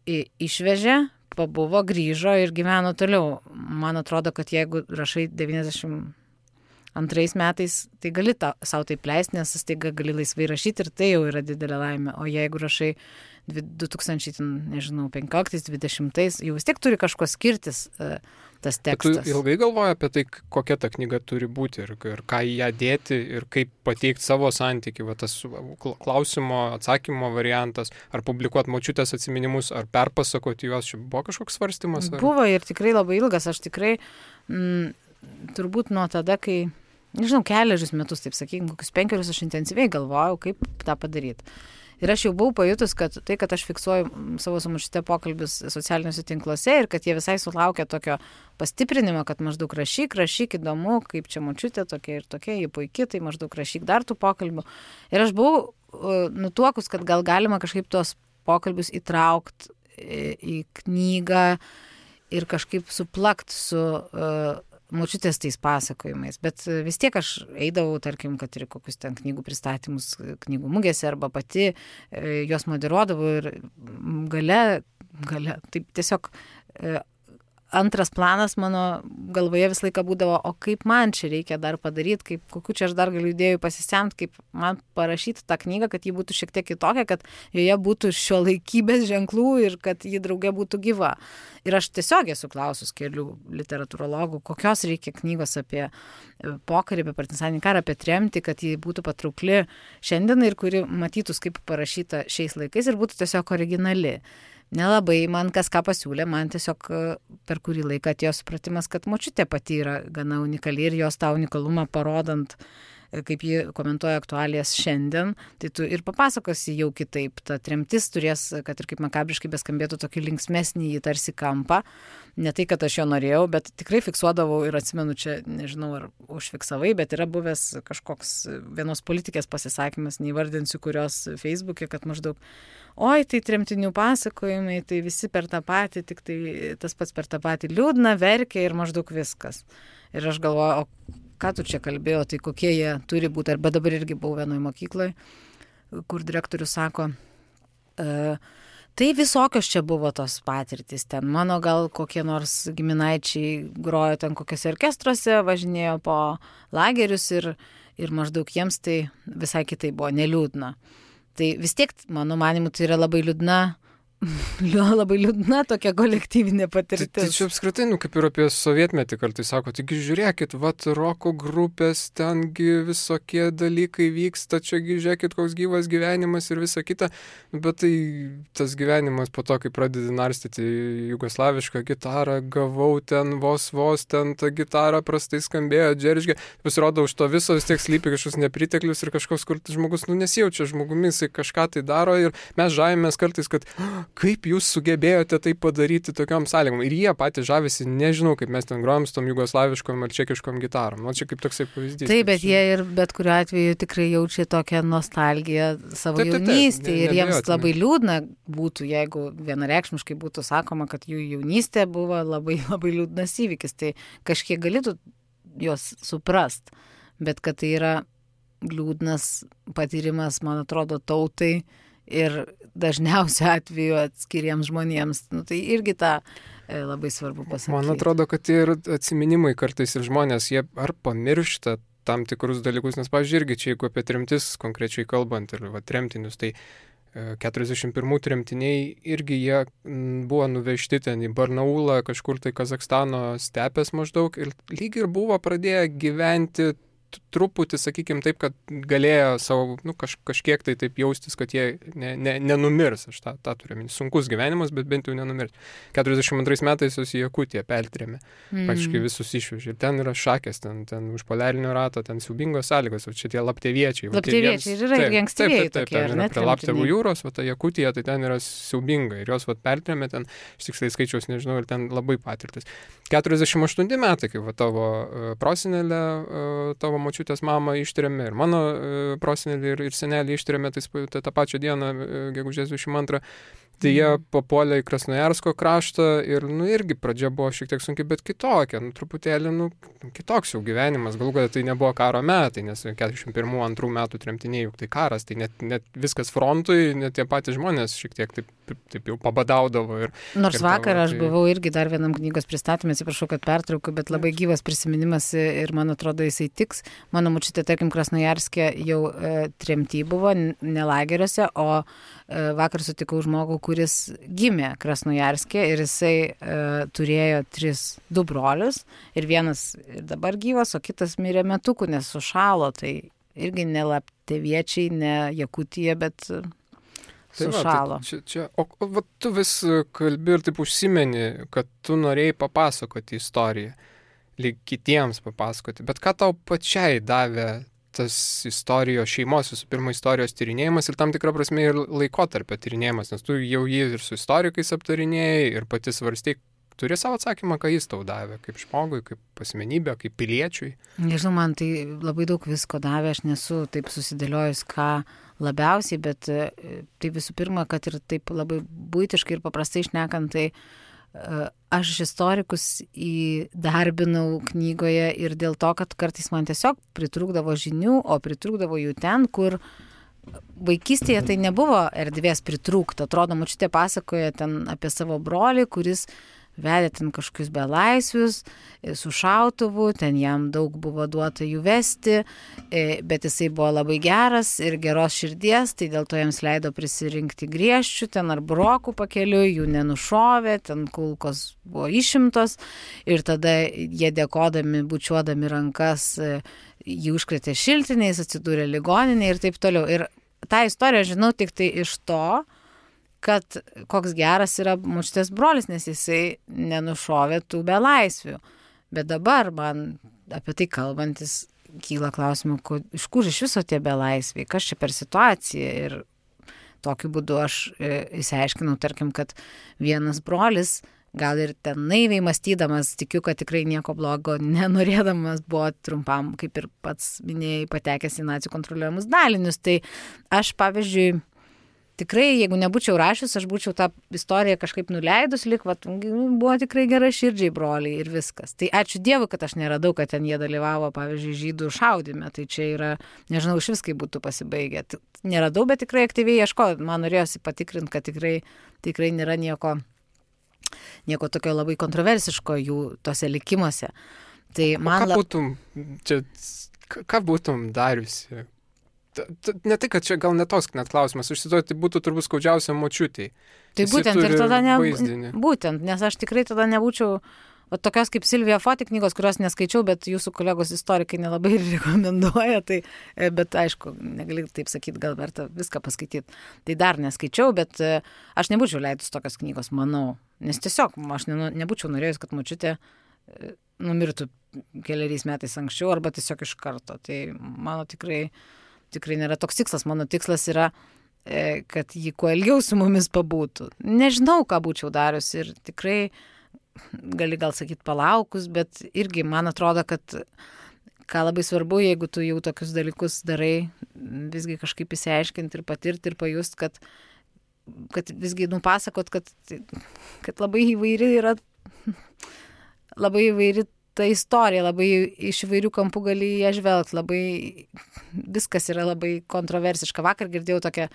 išvežė, pabuvo, grįžo ir gyveno toliau. Man atrodo, kad jeigu rašai 92 metais, tai gali savo taip leisti, nes staiga gali laisvai rašyti ir tai jau yra didelė laimė. O jeigu rašai 2015-2020, jau vis tiek turi kažko skirtis tas tekstas. Tu ilgai galvoji apie tai, kokia ta knyga turi būti ir ką į ją dėti ir kaip pateikti savo santykį, va tas klausimo, atsakymo variantas, ar publikuoti močiutės atsiminimus, ar perpasakoti juos, čia buvo kažkoks svarstymas? Ar? Buvo ir tikrai labai ilgas, aš tikrai turbūt nuo tada, kai nežinau, keliarius metus, taip sakykime, kokius 5 aš intensyviai galvojau, kaip tą padaryti. Ir aš jau buvau pajutus, kad tai, kad aš fiksuoju savo su močiute pokalbius socialiniuose tinkluose ir kad jie visai sulaukia tokio pastiprinimo, kad maždaug rašyk, įdomu, kaip čia močiutė tokia ir tokia, jie puikiai, tai maždaug rašyk dar tų pokalbių. Ir aš buvau nutuokus, kad gal galima kažkaip tos pokalbius įtraukti į knygą ir kažkaip suplakt su močiutės tais pasakojimais, bet vis tiek aš eidavau, tarkim, kad ir kokius ten knygų pristatymus knygų mugėse arba pati juos moderuodavau ir gale, taip tiesiog antras planas mano galvoje visą laiką būdavo, o kaip man čia reikia dar padaryti, kokiu čia aš dar galiu idėjų pasisemti, kaip man parašyti tą knygą, kad ji būtų šiek tiek kitokia, kad joje būtų šiuolaikybės ženklų ir kad ji drauge būtų gyva. Ir aš tiesiog esu klausus kelių literatūrologų, kokios reikia knygos apie pokarį, apie partizaninį karą, apie tremtį, kad ji būtų patraukli šiandien ir kuri matytųs kaip parašyta šiais laikais ir būtų tiesiog originali. Nelabai man kas ką pasiūlė, man tiesiog per kurį laiką atėjo supratimas, kad močiutė pati yra gana unikali ir jos tą unikalumą parodant kaip ji komentuoja aktualijas šiandien, tai tu ir papasakosi jau kitaip. Ta tremtis turės, kad ir kaip makabriškai beskambėtų, tokį linksmesnį į tarsi kampą. Ne tai, kad aš jo norėjau, bet tikrai fiksuodavau ir atsimenu čia, nežinau, ar užfiksavai, bet yra buvęs kažkoks vienos politikės pasisakymas, neįvardinsiu kurios Facebook'e, kad maždaug, oi, tai tremtinių pasakojimai, tai visi per tą patį, tik tai tas pats per tą patį liūdna, verkia ir maždaug viskas. Ir aš galvoju, o ką tu čia kalbėjo, tai kokie jie turi būti, arba dabar irgi buvau vienoje mokykloje, kur direktorius sako, tai visokios čia buvo tos patirtys ten. Mano gal kokie nors giminaičiai grojo ten kokiuose orkestruose, važinėjo po lagerius ir maždaug jiems tai visai kitai buvo, neliūdna. Tai vis tiek, mano manimu, tai yra labai liūdna tokia kolektyvinė patirtis. Tai čia apskritai, kaip ir apie sovietmetį kartais sako, taigi žiūrėkit, roko grupės, tengi visokie dalykai vyksta, čiagi žiūrėkit, koks gyvas gyvenimas ir visa kita, bet tai tas gyvenimas po to, kai pradedi narstyti jugoslavišką gitarą, gavau ten vos ten tą gitarą prastai skambėjo, džeržgė, pasirodo už to viso vis tiek slypi kažkoks nepriteklius ir kažkoks, kur žmogus nesijaučia žmogumi, jisai kažką tai daro ir mes žavimės kartais, kad kaip jūs sugebėjote tai padaryti tokiom sąlygom. Ir jie patys žavisi, nežinau, kaip mes ten grojam su tom jugoslaviškom ar čekiškom gitarom. Čia kaip toksai pavyzdys. Taip, bet jie ir bet kuriuo atveju tikrai jaučia tokią nostalgiją savo jaunystėje. Ir jiems labai liūdna būtų, jeigu vienareikšmiškai būtų sakoma, kad jų jaunystė buvo labai, labai liūdnas įvykis. Tai kažkiek galėtų juos suprast. Bet kad tai yra liūdnas patyrimas, man atrodo, tautai ir dažniausiu atveju atskiriems žmonėms. Tai irgi tą labai svarbu pasakyti. Man atrodo, kad ir atsiminimai kartais ir žmonės, jie ar pamiršta tam tikrus dalykus, nes, pavyzdžiui, irgi čia, jeigu apie tremtis konkrečiai kalbant ir tremtinius, tai 41 tremtiniai irgi jie buvo nuvežti ten į Barnaulą, kažkur tai Kazakstano stepės maždaug ir lyg ir buvo pradėję gyventi truputį, sakykime taip, kad galėjo savo, kažkiek tai taip jaustis, kad jie nenumirs. Aš tą turiu minti. Sunkus gyvenimas, bet bent jau nenumirs. 42 metais jos į Jakutiją pertrėmė. Praktiškai visus išvežė. Ir ten yra šakės, ten už poliarinio rato, ten siaubingos sąlygos. O čia tie lapteviečiai. Lapteviečiai yra irgi ankstyvieji tokie, ten yra prie Laptevų jūros, o ta Jakutija, tai ten yra siaubinga. Ir jos pertrėmė ten, aš tiksliai skaičiaus nežinau, ir ten labai patirtis. 48 metai, kai tavo prosenelė, tavo močiutės mamą ištrėmė ir mano prosenelį ir senelį ištrėmė tą pačią dieną, gegužės 22. Tai jie papuolė į Krasnojarsko kraštą ir irgi pradžia buvo šiek tiek sunkiai, bet kitokia, truputėlį kitoks jau gyvenimas. Galų galia tai nebuvo karo metai, nes 41-2 metų tremtiniai, juk tai karas, tai net viskas frontui, net tie patys žmonės šiek tiek taip jau pabadaudavo. Nors vakar aš buvau irgi dar vienam knygos pristatymė, atsiprašau, kad pertraukiu, bet labai gyvas prisiminimas ir man atrodo jisai tiks. Mano močiutė, tarkim, Krasnojarske jau tremty buvo, ne lageriuose, o vakar sutikau žmogų, kuris gimė Krasnojarske ir jisai turėjo 2 brolius ir vienas ir dabar gyvas, o kitas mirė metukų, nes sušalo, tai irgi ne lapteviečiai, ne Jakutija, bet sušalo. O tu vis kalbi ir taip užsimeni, kad tu norėjai papasakoti istoriją, lyg kitiems papasakoti, bet ką tau pačiai davė tas istorijos šeimos, visų pirma, istorijos tyrinėjimas ir tam tikrą prasme ir laikotarpio tyrinėjimas, nes tu jau jį ir su istorikais aptarinėjai ir pati svarstei, turi savo atsakymą, ką jis tau davė, kaip žmogui, kaip asmenybė, kaip piliečiui. Nežinau, man tai labai daug visko davė, aš nesu taip susidėliojus, ką labiausiai, bet tai visų pirma, kad ir taip labai buitiškai ir paprastai šnekant, tai aš istorikus įdarbinau knygoje ir dėl to, kad kartais man tiesiog pritrūkdavo žinių, o pritrūkdavo jų ten, kur vaikystėje tai nebuvo erdvės pritrūkti. Atrodo, močiutė pasakoja ten apie savo brolį, kuris vedė ten kažkokius belaisvius su šautuvu, ten jam daug buvo duota jų vesti, bet jisai buvo labai geras ir geros širdies, tai dėl to jiems leido prisirinkti griežčių, ten ar brokų pakeliui, jų nenušovė, ten kulkos buvo išimtos ir tada jie dėkodami, bučiuodami rankas, jį užkrėtė šiltiniais, atsidūrė ligoninėje ir taip toliau. Ir tą istoriją žinau tik tai iš to, kad koks geras yra močiutės brolis, nes jisai nenušovė tų belaisvių. Bet dabar man apie tai kalbantis kyla klausimų, iš kur iš viso tie belaisviai, kas čia per situacija. Ir tokiu būdu aš įsiaiškinau, tarkim, kad vienas brolis, gal ir ten naiviai mąstydamas, tikiu, kad tikrai nieko blogo nenorėdamas, buvo trumpam, kaip ir pats minėjai, patekęs į nacių kontroliuojamus dalinius. Tai aš, pavyzdžiui, tikrai, jeigu nebūčiau rašius, aš būčiau tą istoriją kažkaip nuleidus, buvo tikrai gera širdžiai broliai ir viskas. Tai ačiū Dievui, kad aš neradau, kad ten jie dalyvavo, pavyzdžiui, žydų šaudyme. Tai čia yra, nežinau, iš viskai būtų pasibaigę. Neradau, bet tikrai aktyviai ieškojau. Man norėjosi patikrinti, kad tikrai nėra nieko tokio labai kontroversiško jų tose likimuose. Tai man ką būtum dariusi? Ne tai, kad čia gal netoks net klausimas, užsiduoti būtų turbūt skaudžiausia močiutei. Tai būtent ir tada būtent, nes aš tikrai tada nebūčiau tokios kaip Silvija Foti knygos, kurios neskaičiau, bet jūsų kolegos istorikai nelabai rekomenduoja, bet aišku, negali taip sakyti, gal verta viską paskaityti. Tai dar neskaičiau, bet aš nebūčiau leidus tokios knygos, manau, nes tiesiog aš nebūčiau norėjus, kad močiutė numirtų keliais metais anksčiau arba tiesiog iš karto. Tai mano tikrai nėra toks tikslas. Mano tikslas yra, kad ji kuo ilgiau su mumis pabūtų. Nežinau, ką būčiau darius ir tikrai gali gal sakyti palaukus, bet irgi man atrodo, kad ką labai svarbu, jeigu tu jau tokius dalykus darai, visgi kažkaip įsiaiškinti ir patirti ir pajust, kad visgi nupasakot, kad labai įvairi yra, labai įvairi ta istorija, labai iš įvairių kampų gali ją žvelgti, labai viskas yra labai kontroversiška. Vakar girdėjau tokią,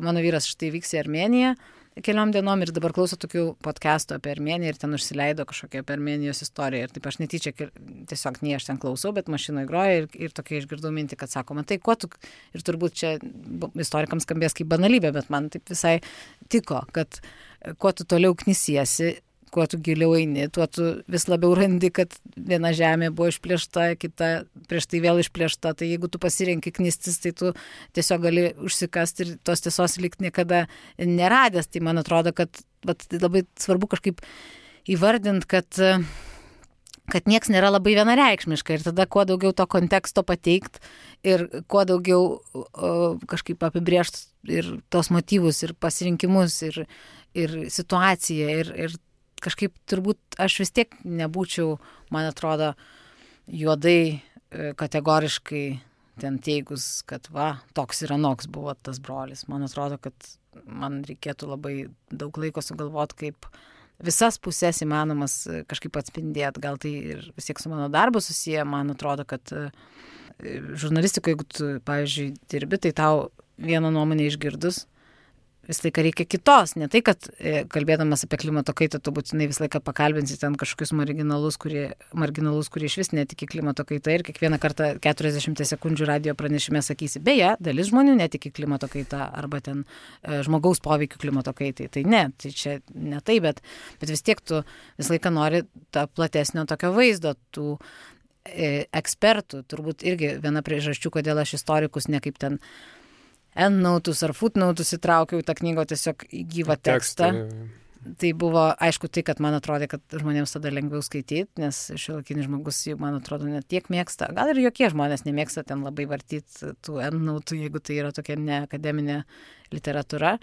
mano vyras štai vyks į Armėniją keliom dienom ir dabar klauso tokių podcastų apie Armėniją ir ten užsileido kažkokią apie Armėnijos istoriją. Ir taip aš netyčia, tiesiog nei aš ten klausau, bet mašinoje groja ir tokia išgirdau mintį, kad sako, man tai kuo tu, ir turbūt čia istorikams skambės kaip banalybė, bet man taip visai tiko, kad kuo tu toliau knisiesi, kuo tu giliau eini, tuo tu vis labiau randi, kad viena žemė buvo išplėšta, kita prieš tai vėl išplėšta. Tai jeigu tu pasirenki knistis, tai tu tiesiog gali užsikasti ir tos tiesos likti niekada neradęs. Tai man atrodo, kad labai svarbu kažkaip įvardinti, kad nieks nėra labai vienareikšmiška. Ir tada kuo daugiau to konteksto pateikt ir kuo daugiau kažkaip apibrėžti ir tos motyvus, ir pasirinkimus, ir situaciją, ir kažkaip turbūt aš vis tiek nebūčiau, man atrodo, juodai kategoriškai ten teigus, kad toks ir anoks buvo tas brolis. Man atrodo, kad man reikėtų labai daug laiko sugalvoti, kaip visas pusės įmanomas kažkaip atspindėti. Gal tai ir vis tiek su mano darbu susiję. Man atrodo, kad žurnalistikoje, jeigu tu, pavyzdžiui, dirbi, tai tau vieną nuomonę išgirdus, visą laiką reikia kitos. Ne tai, kad kalbėdamas apie klimato kaitą, tu būtinai visą laiką pakalbinsi ten kažkokius marginalus, kurie iš vis netiki klimato kaitą ir kiekvieną kartą 40 sekundžių radio pranešime sakysi, beje, dalis žmonių netiki klimato kaitą arba ten žmogaus poveikių klimato kaitai. Tai ne, tai čia ne tai, bet vis tiek tu visą laiką nori tą platesnio tokio vaizdo, tų ekspertų. Turbūt irgi viena priežasčių, kodėl aš istorikus ne kaip ten endnotus ar footnotus įtraukiau į tą knygą, tiesiog į gyvą tekstą. Tai buvo, aišku, tai, kad man atrodė, kad žmonėms tada lengviau skaityti, nes šiuolaikinis žmogus, man atrodo, net tiek mėgsta. Gal ir jokie žmonės nemėgsta ten labai vartyti tų endnotų, jeigu tai yra tokia neakademinė literatūra.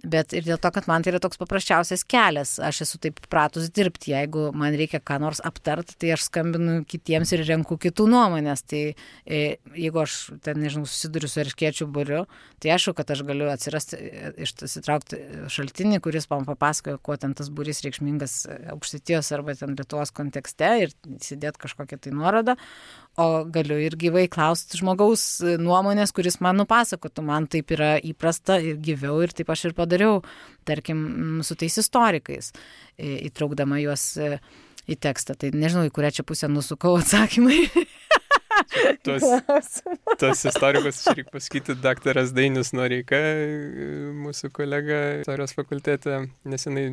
Bet ir dėl to, kad man tai yra toks paprasčiausias kelias, aš esu taip pratus dirbti, jeigu man reikia ką nors aptarti, tai aš skambinu kitiems ir renku kitų nuomonės. Tai jeigu aš ten, nežinau, susiduriu su erškėčių būriu, tai aišku, kad aš galiu išsitraukti šaltinį, kuris man papasakoja, kuo ten tas būrys reikšmingas Aukštaitijos arba ten Lietuvos kontekste ir įsidėti kažkokią tai nuorodą. O galiu ir gyvai klausti žmogaus nuomonės, kuris man nupasakotų. Man taip yra įprasta ir gyviau ir taip aš ir padariau, tarkim, su tais istorikais, įtraukdama juos į tekstą. Tai nežinau, į kurią čia pusę nusukau atsakymai. Tos istorikus, čia reikia pasakyti, daktaras Dainius Noreika, mūsų kolega istorijos fakultete, nesenai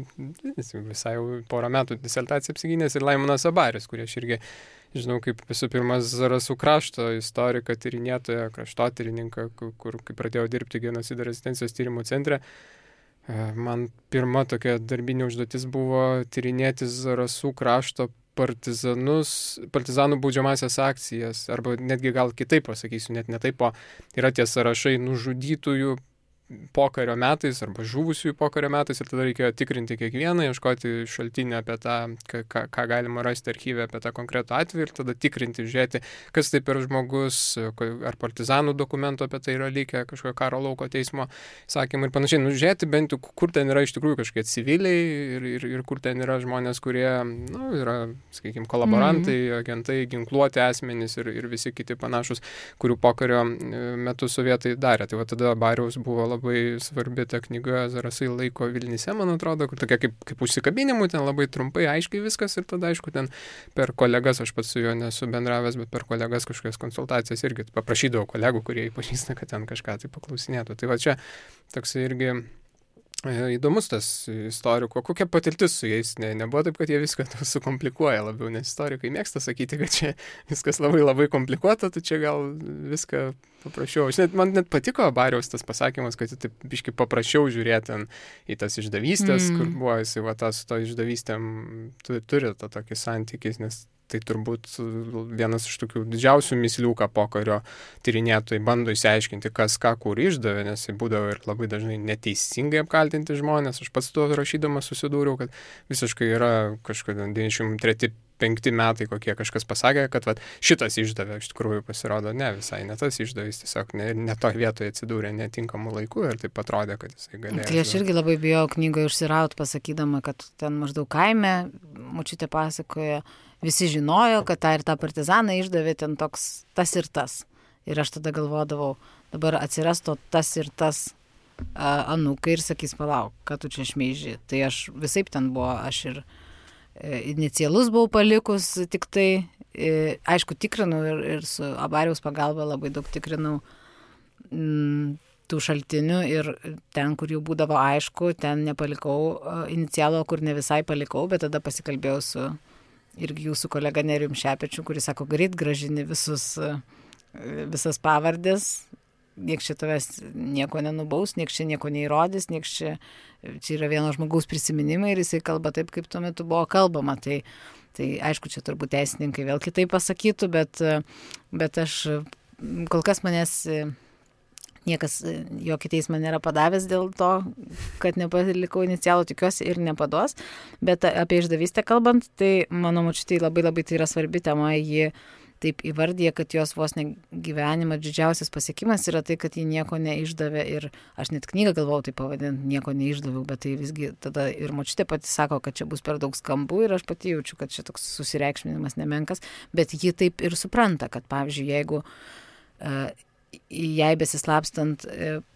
visai jau porą metų disertaciją apsigynęs, ir Laimonas Abarius, kurie aš irgi žinau, kaip visų pirma Zarasų krašto istoriką, tyrinėtoją, kraštotyrininką, kur kai pradėjau dirbti genocido rezistencijos tyrimų centre, man pirma tokia darbinė užduotis buvo tyrinėti Zarasų krašto partizanų baudžiamasias akcijas, arba netgi gal kitaip pasakysiu, net ne taip, o yra tie sąrašai nužudytųjų pokario metais arba žuvusiųjų pokario metais ir tada reikėjo tikrinti kiekvieną, ieškoti šaltinį apie tą, ką galima rasti archyve apie tą konkretų atvejį ir tada tikrinti, žiūrėti, kas tai per žmogus, ar partizanų dokumentų apie tai yra likę, kažkokio karo lauko teismo sakymai ir panašiai. Žiūrėti bent jau, kur ten yra iš tikrųjų kažkokie civiliai ir kur ten yra žmonės, kurie yra, sakykime, kolaborantai, agentai, ginkluoti asmenys ir visi kiti panašus, kurių pokario metu sovietai darė. Tai va tada Bariaus buvo labai svarbi ta knyga Zarasai laiko Vilnyse, man atrodo, kur tokia kaip užsikabinimų, ten labai trumpai, aiškiai viskas ir tada, aišku, ten per kolegas, aš pats su juo nesu bendravęs, bet per kolegas kažkokias konsultacijas irgi paprašydavau kolegų, kurie jį pažįsta, kad ten kažką tai paklausinėtų. Tai va čia toks irgi įdomus tas istoriko, kokia patirtis su jais, nebuvo taip, kad jie viską sukomplikuoja labiau, nes istorikai mėgsta sakyti, kad čia viskas labai labai komplikuota, tai čia gal viską paprašiau. Man net patiko Bariaus tas pasakymas, kad taip biškai paprašiau žiūrėti į tas išdavystės, kur buvo jisai va tas to išdavystėm turi tą tokį santykį, nes tai turbūt vienas iš tokių didžiausių mįslių, ką pokario tyrinėtojai bando išsiaiškinti, kas ką kur išdavė, nes tai būdavo ir labai dažnai neteisingai apkaltinti žmonės. Aš pats tuo rašydamas susidūriau, kad visiškai yra kažkada 93-5 metai, kokie kažkas pasakė, kad vat, šitas išdavė, iš tikrųjų pasirodo, ne visai, ne tas išdavys, tiesiog ne to vietoje atsidūrė netinkamų laikų ir taip atrodė, kad jisai galėjo. Tai aš irgi labai bijau knygoje užsiraut, pasakydama, kad ten maždaug kaime, močiutė pasakoja, visi žinojo, kad tą ir tą partizaną išdavė ten toks tas ir tas. Ir aš tada galvodavau, dabar atsiras to tas ir tas anūkai ir sakys, palauk, kad tu čia šmeiži. Tai aš visaip ten buvo, aš ir inicialus buvau palikus, tik tai, aišku, tikrinau ir su Abariaus pagalba labai daug tikrinau tų šaltinių ir ten, kur jau būdavo aišku, ten nepalikau inicialo, kur ne visai palikau, bet tada pasikalbėjau su irgi jūsų kolega Nerijum Šepečiu, kuris sako, greit gražini visas pavardės, nieks čia tavęs nieko nenubaus, nieks čia nieko neįrodys, nieks čia yra vieno žmogaus prisiminimai ir jisai kalba taip, kaip tuo metu buvo kalbama. Tai aišku, čia turbūt teisininkai vėl kitaip pasakytų, bet aš kol kas manęs niekas jokį teismą nėra padavęs dėl to, kad nepalikau inicialų, tikiuosi ir nepaduos. Bet apie išdavystę kalbant, tai mano močiutei labai labai tai yra svarbi tema. Ji taip įvardyja, kad jos vos ne gyvenimo didžiausias pasiekimas yra tai, kad ji nieko neišdavė. Ir aš net knygą galvojau tai pavadinti, nieko neišdaviau, bet tai visgi tada ir močiutė pati sako, kad čia bus per daug skambų ir aš pati jaučiu, kad čia toks susireikšminimas nemenkas. Bet ji taip ir supranta, kad pavyzdžiui, jeigu jei besislapstant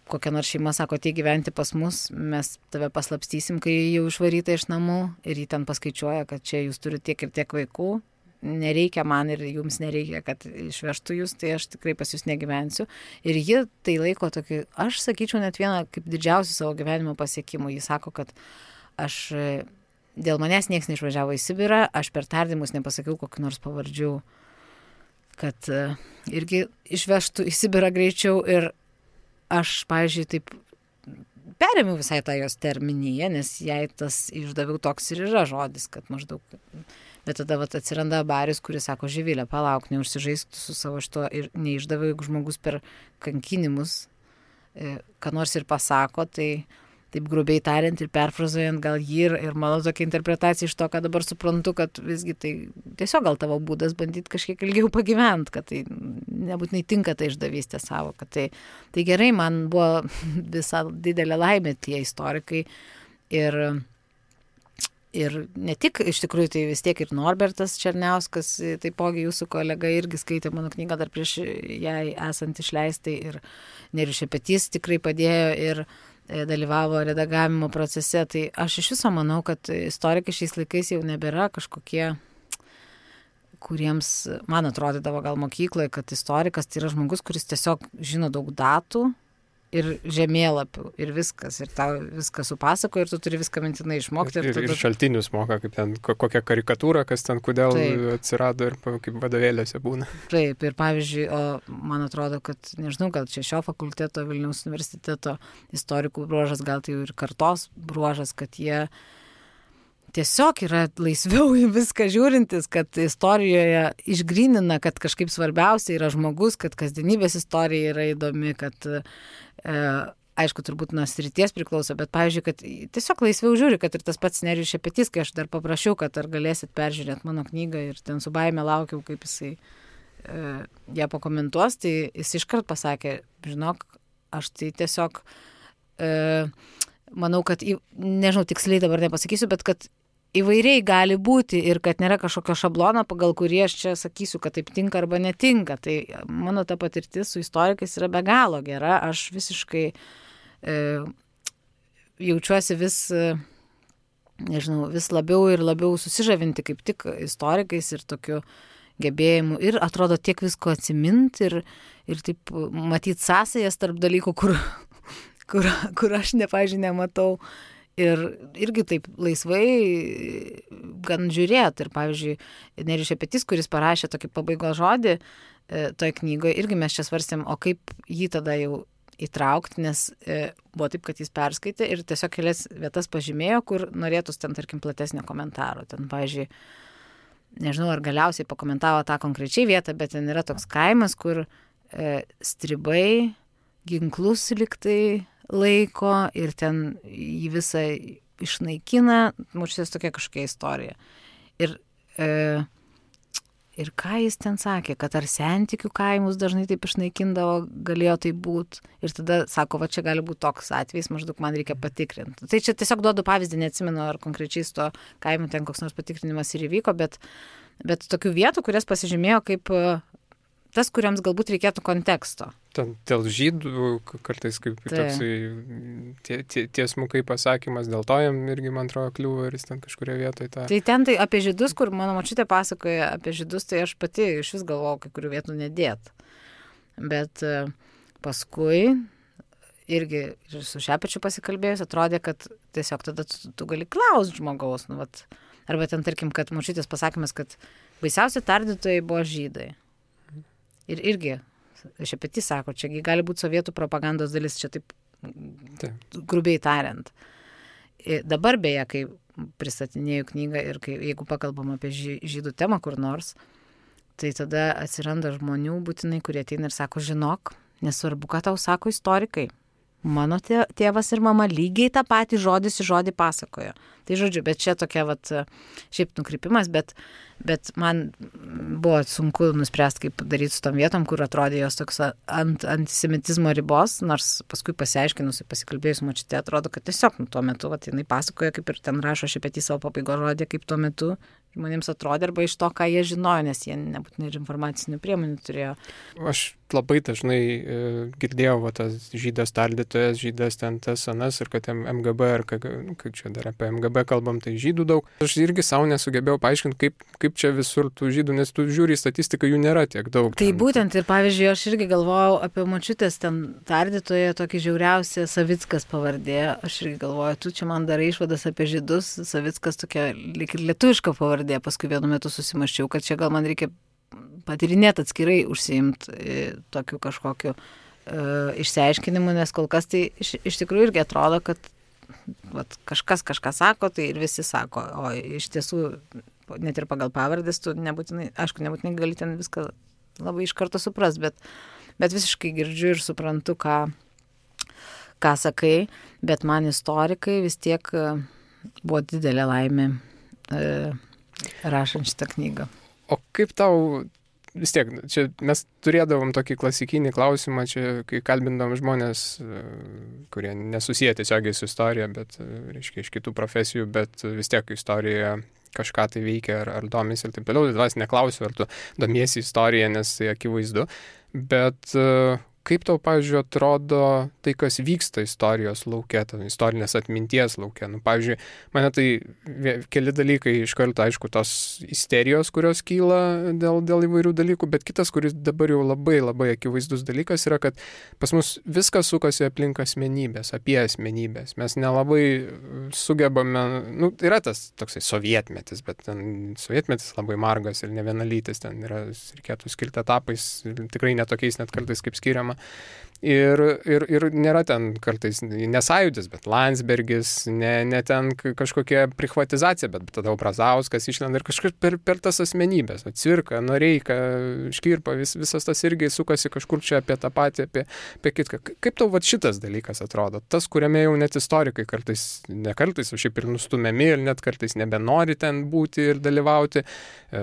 kokia nors šeima sako, tai gyventi pas mus, mes tave paslapstysim, kai jau išvaryta iš namų ir jį ten paskaičiuoja, kad čia jūs turite tiek ir tiek vaikų, nereikia man ir jums nereikia, kad išvežtų jūs, tai aš tikrai pas jūs negyvensiu. Ir ji tai laiko tokį, aš sakyčiau, net vieną kaip didžiausių savo gyvenimo pasiekimų. Ji sako, kad dėl manęs nieks neišvažiavo į Sibirą, aš per tardymus nepasakiau kokių nors pavardžių, kad irgi išvežtų į Sibirą greičiau ir aš, pavyzdžiui, taip perėmiau visai tą jos terminiją, nes jai tas išdaviau toks ir yra žodis, kad maždaug. Bet tada atsiranda Barius, kuris sako, Živilė, palauk, neužsižaisk su savo šito ir neišdaviau, jeigu žmogus per kankinimus, ką nors ir pasako, tai taip grubiai tariant ir perfrazuojant gal jį ir mano tokia interpretacija iš to, ką dabar suprantu, kad visgi tai tiesiog gal tavo būdas bandyti kažkiek ilgiau pagyventi, kad tai nebūtinai tinka tai išdavystė savo, kad tai gerai, man buvo visa didelė laimė tie istorikai ir ne tik, iš tikrųjų, tai vis tiek ir Norbertas Černiauskas, taipogi jūsų kolega irgi skaitė mano knygą dar prieš jai esant išleistai ir Nerijus Šepetys tikrai padėjo ir dalyvavo redagavimo procese. Tai aš iš viso manau, kad istorikai šiais laikais jau nebėra kažkokie, kuriems, man atrodydavo gal mokykloje, kad istorikas tai yra žmogus, kuris tiesiog žino daug datų ir žemėlapių ir viskas. Ir tau viską supasakoja ir tu turi viską mintinai išmokti. Ir šaltinius moka, kaip ten kokią karikatūrą, kas ten kodėl atsirado ir kaip vadovėliuose būna. Taip, ir pavyzdžiui, man atrodo, kad, nežinau, gal čia šio fakulteto, Vilniaus universiteto istorikų bruožas, gal tai ir kartos bruožas, kad jie tiesiog yra laisviau į viską žiūrintis, kad istorijoje išgrynina, kad kažkaip svarbiausia yra žmogus, kad kasdienybės istorija yra įdomi, kad aišku, turbūt nuo srities priklauso, bet pavyzdžiui, kad tiesiog laisviau žiūri, kad ir tas pats Nerijus Šepetys, kai aš dar paprašiau, kad ar galėsit peržiūrėti mano knygą ir ten su baime laukiau, kaip jisai ją pakomentuos, tai jis iškart pasakė, žinok, aš tai tiesiog manau, kad, nežinau, tiksliai dabar nepasakysiu, bet kad įvairiai gali būti ir kad nėra kažkokio šablono, pagal kurį aš čia sakysiu, kad taip tinka arba netinka. Tai mano ta patirtis su istorikais yra be galo gera. Aš visiškai jaučiuosi vis, nežinau, vis labiau ir labiau susižavinti kaip tik istorikais ir tokiu gebėjimu. Ir atrodo tiek visko atsiminti ir taip matyti sąsajas tarp dalykų, kur aš nematau. Ir irgi taip laisvai gan žiūrėt. Ir pavyzdžiui, Nerijus Šepetys, kuris parašė tokį pabaigos žodį toj knygoje, irgi mes čia svarstėm, o kaip jį tada jau įtraukti, nes buvo taip, kad jis perskaitė ir tiesiog kelias vietas pažymėjo, kur norėtųs ten, tarkim, platesnio komentaro. Ten, pavyzdžiui, nežinau, ar galiausiai pakomentavo tą konkrečiai vietą, bet ten yra toks kaimas, kur stribai ginklus liktai laiko ir ten jį visą išnaikina, mūšės tokia kažkokia istorija. Ir ką jis ten sakė, kad ar sentikių kaimus dažnai taip išnaikindavo, galėjo tai būti. Ir tada sako, va čia gali būti toks atvejis, maždaug man reikia patikrinti. Tai čia tiesiog duodu pavyzdį, neatsimenu, ar konkrečiai su to kaimu ten koks nors patikrinimas ir įvyko, bet tokių vietų, kurias pasižymėjo kaip tas, kuriams galbūt reikėtų konteksto. Ten dėl žydų kartais kaip toksai tiesmukai pasakymas, dėl to jam irgi, man atrodo, kliūva ir jis ten kažkurioje vietoje tą. Tai ten tai apie žydus, kur mano močiutė pasakoja apie žydus, tai aš pati iš vis galvojau, kai kurių vietų nedėt. Bet paskui irgi ir su Šepečiu pasikalbėjus, atrodė, kad tiesiog tada tu gali klausti žmogaus. Nu, vat, arba ten, tarkim, kad močiutės pasakymas, kad baisiausi tardytojai buvo žydai. Ir irgi Šepetys sako, čia gali būti sovietų propagandos dalis, čia taip grubiai tariant. Dabar beje, kai pristatinėjau knygą ir jeigu pakalbam apie žydų temą kur nors, tai tada atsiranda žmonių būtinai, kurie ateina ir sako, žinok, nesvarbu, ką tau sako istorikai. Mano tėvas ir mama lygiai tą patį žodis į žodį pasakojo. Tai žodžiu, bet čia tokia šiaip nukrypimas, bet man buvo sunku nuspręsti, kaip daryti su tom vietom, kur atrodė jos toks ant antisemitizmo ribos, nors paskui pasiaiškinusi, pasikalbėjus močiutė, atrodo, kad tiesiog tuo metu jinai pasakoja, kaip ir ten rašo Šepetys savo pabaigos žodį, kaip tuo metu žmonėms atrodė, arba iš to, ką jie žinojo, nes jie nebūtinai ir informacinių priemonių turėjo. Aš labai dažnai girdėjau tas žydas tardytojas, žydas ten tas anas ir kad MGB, ar kai čia dar apie MGB kalbam, tai žydų daug. Aš irgi savo nesugebėjau paaiškinti, kaip čia visur tų žydų, nes tu žiūri į statistiką, jų nėra tiek daug. Tai būtent ir pavyzdžiui, aš irgi galvojau apie močiutės ten tardytoje, tokį žiauriausią Savickas pavardė. Aš irgi galvoju, tu čia man darai išvadas apie žydus, Savickas tokia lyg ir lietuviška pavardė. Paskui vienu metu susimaščiau, kad čia gal man reikia patirinėti atskirai užsiimti tokiu kažkokiu išsiaiškinimu, nes kol kas tai iš tikrųjų irgi atrodo, kad kažkas kažką sako, tai ir visi sako, o iš tiesų net ir pagal pavardės tu nebūtinai gali ten viską labai iš karto suprast, bet visiškai girdžiu ir suprantu, ką sakai, bet man istorikai vis tiek buvo didelė laimė rašant šitą knygą. O kaip tau, vis tiek, čia mes turėdavom tokį klasikinį klausimą, čia kai kalbindavom žmonės, kurie nesusiję tiesiogiai su istorija, bet, reiškia, iš kitų profesijų, bet vis tiek istorija kažką tai veikia ar domisi ir taip toliau. Tai vas neklausiu, ar tu domiesi istoriją, nes tai akivaizdu, bet kaip tau, pavyzdžiui, atrodo tai, kas vyksta istorijos lauke, istorinės atminties lauke? Nu, pavyzdžiui, mane tai keli dalykai iš karto, aišku, tos isterijos, kurios kyla dėl įvairių dalykų, bet kitas, kuris dabar jau labai labai akivaizdus dalykas yra, kad pas mus viskas sukasi aplink asmenybės, apie asmenybės. Mes nelabai sugebame, yra tas toksai sovietmetis, bet ten sovietmetis labai margas ir ne vienalytis, ten yra, reikėtų skirti etapais, tikrai netokiais net kartais kaip skiriama. sistemą. Ir nėra ten kartais nesąjūdis, bet Landsbergis, ne ten kažkokia prichvatizacija, bet tada Brazauskas išlenda ir kažkaip per tas asmenybės, Cvirka, Noreika, Škirpa, visas tas irgi sukasi kažkur čia apie tą patį, apie kitką. Kaip tau šitas dalykas atrodo? Tas, kuriame jau net istorikai ne kartais, o šiaip ir nustumiami ir net kartais nebenori ten būti ir dalyvauti.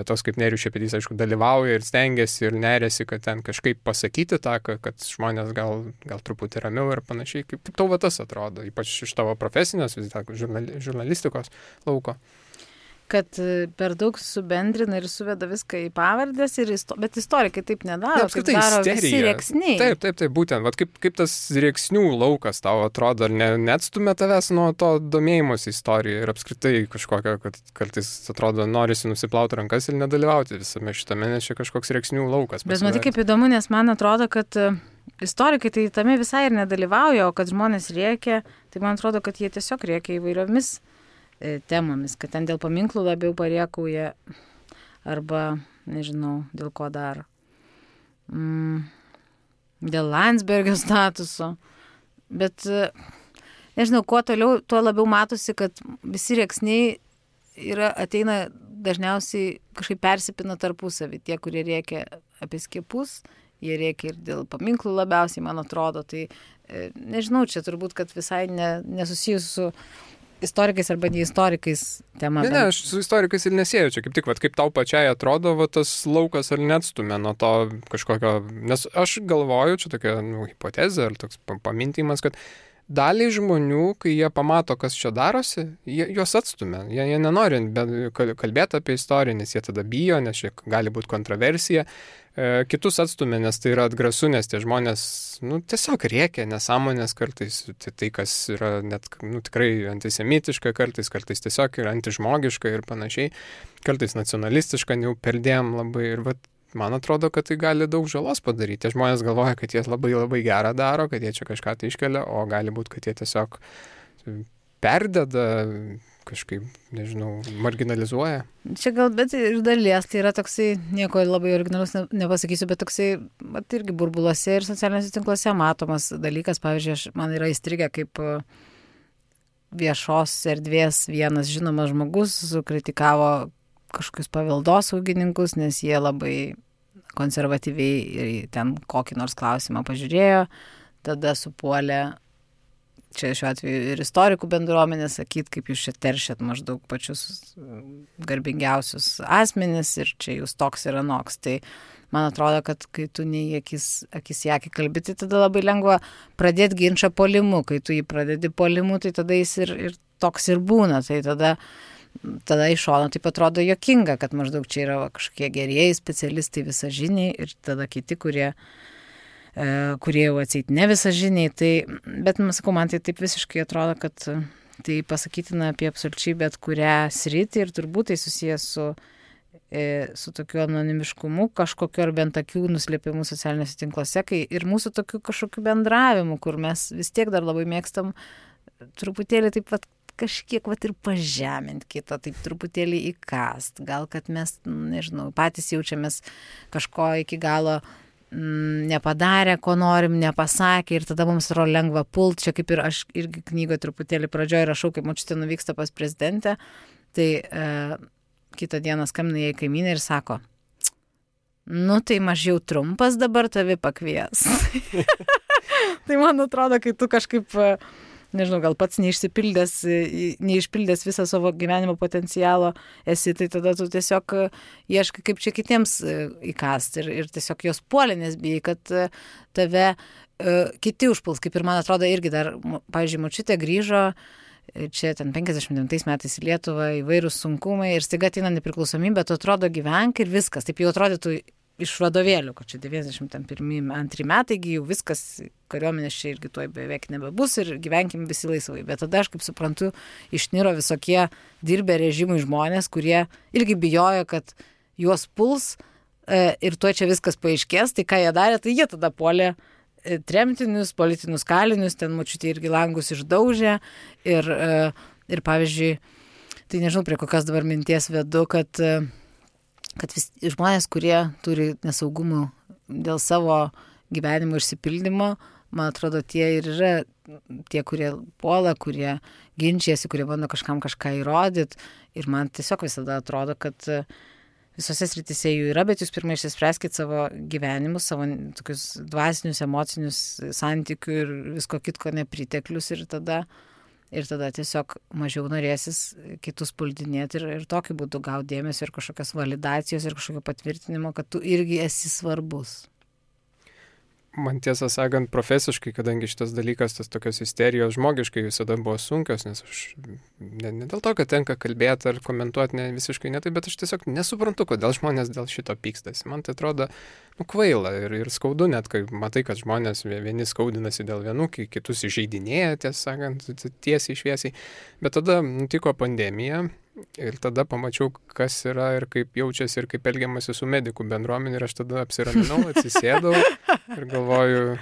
Tos kaip Nerijus Šepetys, aišku, dalyvauja ir stengiasi ir nerėsi, kad ten kažkaip pasakyti tą, kad žmonės gal truputį ramiau ir panašiai. Kaip tau tas atrodo, ypač iš tavo profesinės žurnalistikos lauko? Kad per daug subendrina ir suveda viską į pavardės, bet istorikai taip nedaro, kaip daro visi rėksniai. Taip, būtent. Vat kaip tas rėksnių laukas tau atrodo, ar neatstumia tavęs nuo to domėjimosi istoriją ir apskritai kažkokio, kad kartais atrodo norisi nusiplauti rankas ir nedalyvauti visame šitame, nes čia kažkoks rėksnių laukas. Bet matai, kaip įdomu, nes man atrodo, kad istorikai tai tame visai ir nedalyvauja, o kad žmonės rėkia, tai man atrodo, kad jie tiesiog rėkia įvairiomis temomis, kad ten dėl paminklų labiau pariekauja arba, nežinau, dėl ko dar. Dėl Landsbergio statuso. Bet, nežinau, kuo toliau, tuo labiau matosi, kad visi rėksniai ateina dažniausiai kažkaip persipina tarpusavį. Tie, kurie rėkia apie skiepus, jie rėkia ir dėl paminklų labiausiai, man atrodo. Tai, nežinau, čia turbūt, kad visai nesusijus su istorikais arba ne istorikais tema. Ne, aš su istorikais ir nesėjau čia, kaip tik, kaip tau pačiai atrodo, tas laukas ar neatstumia nuo to kažkokio, nes aš galvoju, čia tokia hipotezė ar toks pamintimas, kad daliai žmonių, kai jie pamato, kas čia darosi, juos atstumia. Jie nenori kalbėti apie istoriją, nes jie tada bijo, nes čia gali būti kontroversija. Kitus atstumia, nes tai yra atgrasu, nes tie žmonės tiesiog rėkia nesąmonės kartais, tai kas yra net tikrai antisemitiška, kartais tiesiog yra antižmogiška ir panašiai, kartais nacionalistiška, jau perdėm labai ir man atrodo, kad tai gali daug žalos padaryti. Tie žmonės galvoja, kad jie labai labai gerą daro, kad jie čia kažką tai iškelia, o gali būti, kad jie tiesiog perdeda, kažkaip, nežinau, marginalizuoja. Čia gal, bet ir dalies, tai yra toksai, nieko labai originalus nepasakysiu, bet toksai, irgi burbuluose ir socialiniuose tinkluose matomas dalykas. Pavyzdžiui, man yra įstrigę kaip viešos erdvės vienas žinomas žmogus sukritikavo kažkokius paveldosaugininkus, nes jie labai konservatyviai ten kokį nors klausimą pažiūrėjo, tada supuolė, čia šiuo atveju ir istorikų bendruomenė, sakyt, kaip jūs čia teršiat maždaug pačius garbingiausius asmenis ir čia jūs toks ir anoks. Tai man atrodo, kad kai tu nei akis į akį kalbi, tai tada labai lengva pradėti ginčą puolimu. Kai tu jį pradedi puolimu, tai tada jis ir toks ir būna. Tai tada iš šono taip atrodo juokinga, kad maždaug čia yra kažkokie gerieji specialistai visažiniai ir tada kiti, kurie jau atseit ne visažiniai. Tai, bet, sakau, man tai taip visiškai atrodo, kad tai pasakytina apie absoliučiai bet kurią sritį ir turbūt tai susijęs su tokiu anonimiškumu, kažkokiu ar bent akių nuslėpimu socialiniuose tinkluose, kai ir mūsų tokiu kažkokiu bendravimu, kur mes vis tiek dar labai mėgstam truputėlį taip kažkiek ir pažemint kitą, taip truputėlį įkast. Gal, kad mes, nežinau, patys jaučiamės kažko iki galo nepadarę, ko norim, nepasakė ir tada mums yra lengva pult. Čia kaip ir aš irgi knygoje truputėlį pradžioje rašau, kaip močiutė nuvyksta pas prezidentę, tai kitą dieną skambina jai kaimynė ir sako, tai mažiau trumpas dabar tavi pakvies. Tai man atrodo, kai tu kažkaip nežinau, gal pats neišpildęs visą savo gyvenimo potencialo esi, tai tada tu tiesiog ieškai, kaip čia kitiems įkast ir tiesiog jos puolė, nes bijai, kad tave kiti užpuls, kaip ir man atrodo irgi dar, pavyzdžiui, močiutė grįžo čia ten 59 metais į Lietuvą, įvairūs sunkumai ir staiga ateina nepriklausomybė, tu atrodo gyvenk ir viskas, taip jau atrodytų iš vadovėlių, kad čia 91-2 metai, jau viskas, kariuomenės čia irgi tuoj beveik nebebus ir gyvenkim visi laisvai. Bet tada aš kaip suprantu, išniro visokie dirbę režimui žmonės, kurie irgi bijojo, kad juos puls ir tuoj čia viskas paaiškės, tai ką jie darė, tai jie tada puolė tremtinius, politinius kalinius, ten močiutė irgi langus išdaužė ir pavyzdžiui, tai nežinau, prie kokios dabar minties vedu, kad žmonės, kurie turi nesaugumų dėl savo gyvenimo išsipildymo, man atrodo, tie ir yra tie, kurie puola, kurie ginčiasi, kurie bando kažkam kažką įrodyti. Ir man tiesiog visada atrodo, kad visose srityse jų yra, bet jūs pirmai išsispręskit savo gyvenimus, savo tokius dvasinius, emocinius santykių ir visko kitko nepriteklius ir tada tiesiog mažiau norėsis kitus puldinėti ir tokiu būdu gauti dėmesio ir kažkokios validacijos ir kažkokio patvirtinimo, kad tu irgi esi svarbus. Man tiesą sakant, profesiškai, kadangi šitas dalykas, tas tokios isterijos žmogiškai visada buvo sunkios, nes aš ne dėl to, kad tenka kalbėti ar komentuoti visiškai ne taip, bet aš tiesiog nesuprantu, kodėl žmonės dėl šito pykstasi. Man tai atrodo kvaila ir skaudu net, kai matai, kad žmonės vieni skaudinasi dėl vienų, kitus įžeidinėja, tiesą sakant, tiesiai šviesiai. Bet tada nutiko pandemija. Ir tada pamačiau, kas yra ir kaip jaučiasi ir kaip elgiamasi su medikų bendruomenė ir aš tada apsiraminau, atsisėdau ir galvoju,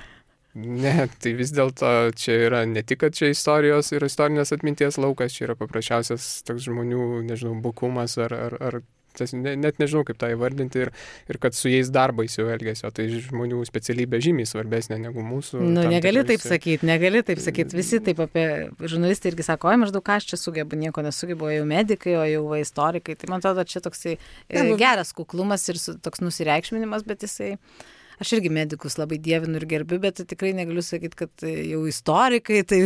ne, tai vis dėlto čia yra ne tik, kad čia istorijos ir istorinės atminties laukas, čia yra paprasčiausias toks žmonių, nežinau, bukumas ar net nežinau, kaip tą įvardinti ir kad su jais darbais jau elgėsi, o tai žmonių specialybė žymiai svarbesnė negu mūsų. Negali taip sakyti, visi taip apie žurnalistai irgi sako, maždaug ką aš čia sugebu, nieko nesugebu, o jau medikai, o jau istorikai, tai man atrodo, čia toksai geras kuklumas ir toks nusireikšminimas, bet jisai... Aš irgi medikus labai dievinu ir gerbiu, bet tikrai negaliu sakyti, kad jau istorikai tai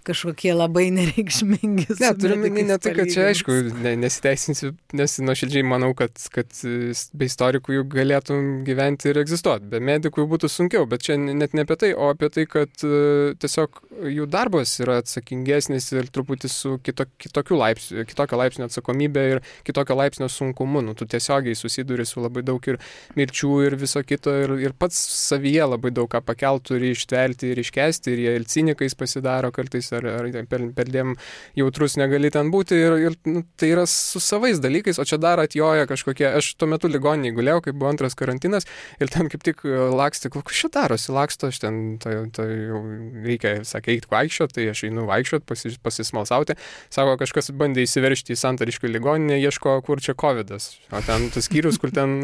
kažkokie labai nereikšmingi. Ne, turime ne tai, kad čia aišku, nesiteisinsiu, nes nuoširdžiai manau, kad be istorikų jų galėtum gyventi ir egzistuoti. Be medikų jų būtų sunkiau, bet čia net ne apie tai, o apie tai, kad tiesiog jų darbas yra atsakingesnis ir truputį su kitokio laipsnio atsakomybė ir kitokio laipsnio sunkumu. Tu tiesiogiai susiduri su labai daug ir mirčių ir viso kito ir pats savyje labai daug ką pakelt turi ištverti ir iškesti ir jie ir cinikais pasidaro kartais ar perdėm jautrus negali ten būti ir tai yra su savais dalykais, o čia dar atjoja kažkokie, aš tuo metu ligoninėj gulėjau, kai buvo antras karantinas ir ten kaip tik lakstė, kas čia darosi, laksto, aš ten tai jau reikia, sakė, eiti vaikščioti, tai aš einu vaikščioti, pasismalsauti, sako, kažkas bandė įsiveržti į Santariškių ligoninę, ieško, kur čia covidas, o ten tas skyrius, kur ten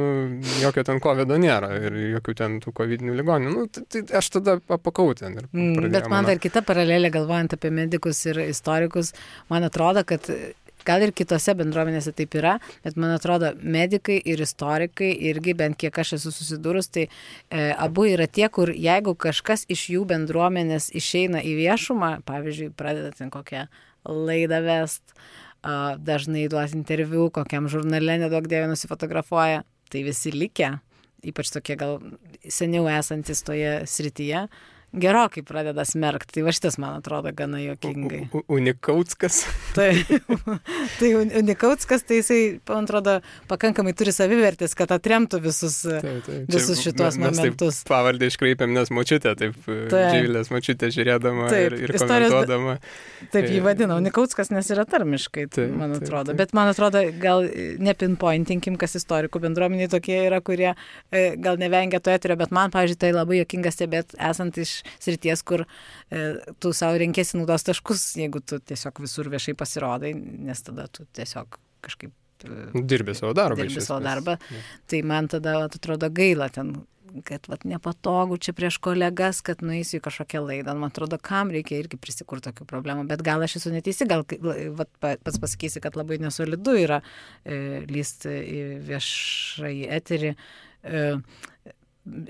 jokio ten covido nėra ir jokių ten tų covidinių ligonių. Tai aš tada apakau ten. Bet man dar kita paralelė, galvojant apie medikus ir istorikus, man atrodo, kad gal ir kitose bendruomenėse taip yra, bet man atrodo, medikai ir istorikai irgi, bent kiek aš esu susidūrus, tai abu yra tie, kur jeigu kažkas iš jų bendruomenės išeina į viešumą, pavyzdžiui, pradeda ten kokią laidą vest, dažnai duos interviu, kokiam žurnale nedaug dievė nusifotografuoja, tai visi likę, ypač tokie gal seniau esantis toje srityje, gerokai pradeda smerkti. Tai va šitas, man atrodo, gana juokingai. Unikautskas. Tai Unikautskas, tai jisai, man atrodo, pakankamai turi savivertės, kad atremtų visus šitos momentus. Taip pavardę iškreipėm, nes močiutė, Živilės močiutė žiūrėdama ir komentuodama. Taip jį vadina Unikautskas, nes yra tarmiškai, man atrodo. Bet man atrodo, gal nepinpointinkim, kas istorikų bendruomeniai tokie yra, kurie gal nevengia to eterio, bet man, pavyzdžiui, tai labai juokinga stebėti, esant iš srities, kur tu savo renkėsi naudos taškus, jeigu tu tiesiog visur viešai pasirodai, nes tada tu tiesiog kažkaip dirbi savo darbą. Tai man tada atrodo gaila ten, kad nepatogu čia prieš kolegas, kad nueisiu į kažkokią laidą. Man atrodo, kam reikia irgi prisikurti tokių problemų, bet gal aš esu neteisi, gal pats pasakysi, kad labai nesolidu yra lysti į viešai eterį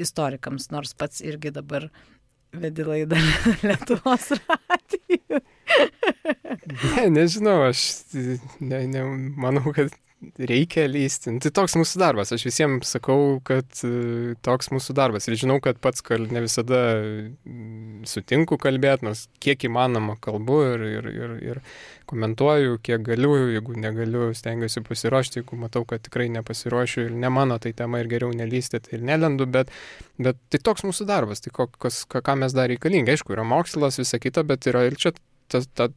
istorikams, nors pats irgi dabar vedi laidą Lietuvos radijui. Nežinau, aš manau, kad reikia lysti. Tai toks mūsų darbas. Aš visiems sakau, kad toks mūsų darbas. Ir žinau, kad pats ne visada sutinku kalbėti, nors kiek įmanoma kalbu ir komentuoju, kiek galiu, jeigu negaliu, stengiuosi pasiruošti, jeigu matau, kad tikrai nepasiruošiu ir ne mano tai tema ir geriau nelysti, tai ir nelendu, bet tai toks mūsų darbas. Tai ką mes dar reikalingi. Aišku, yra mokslas, visa kita, bet yra ir čia ta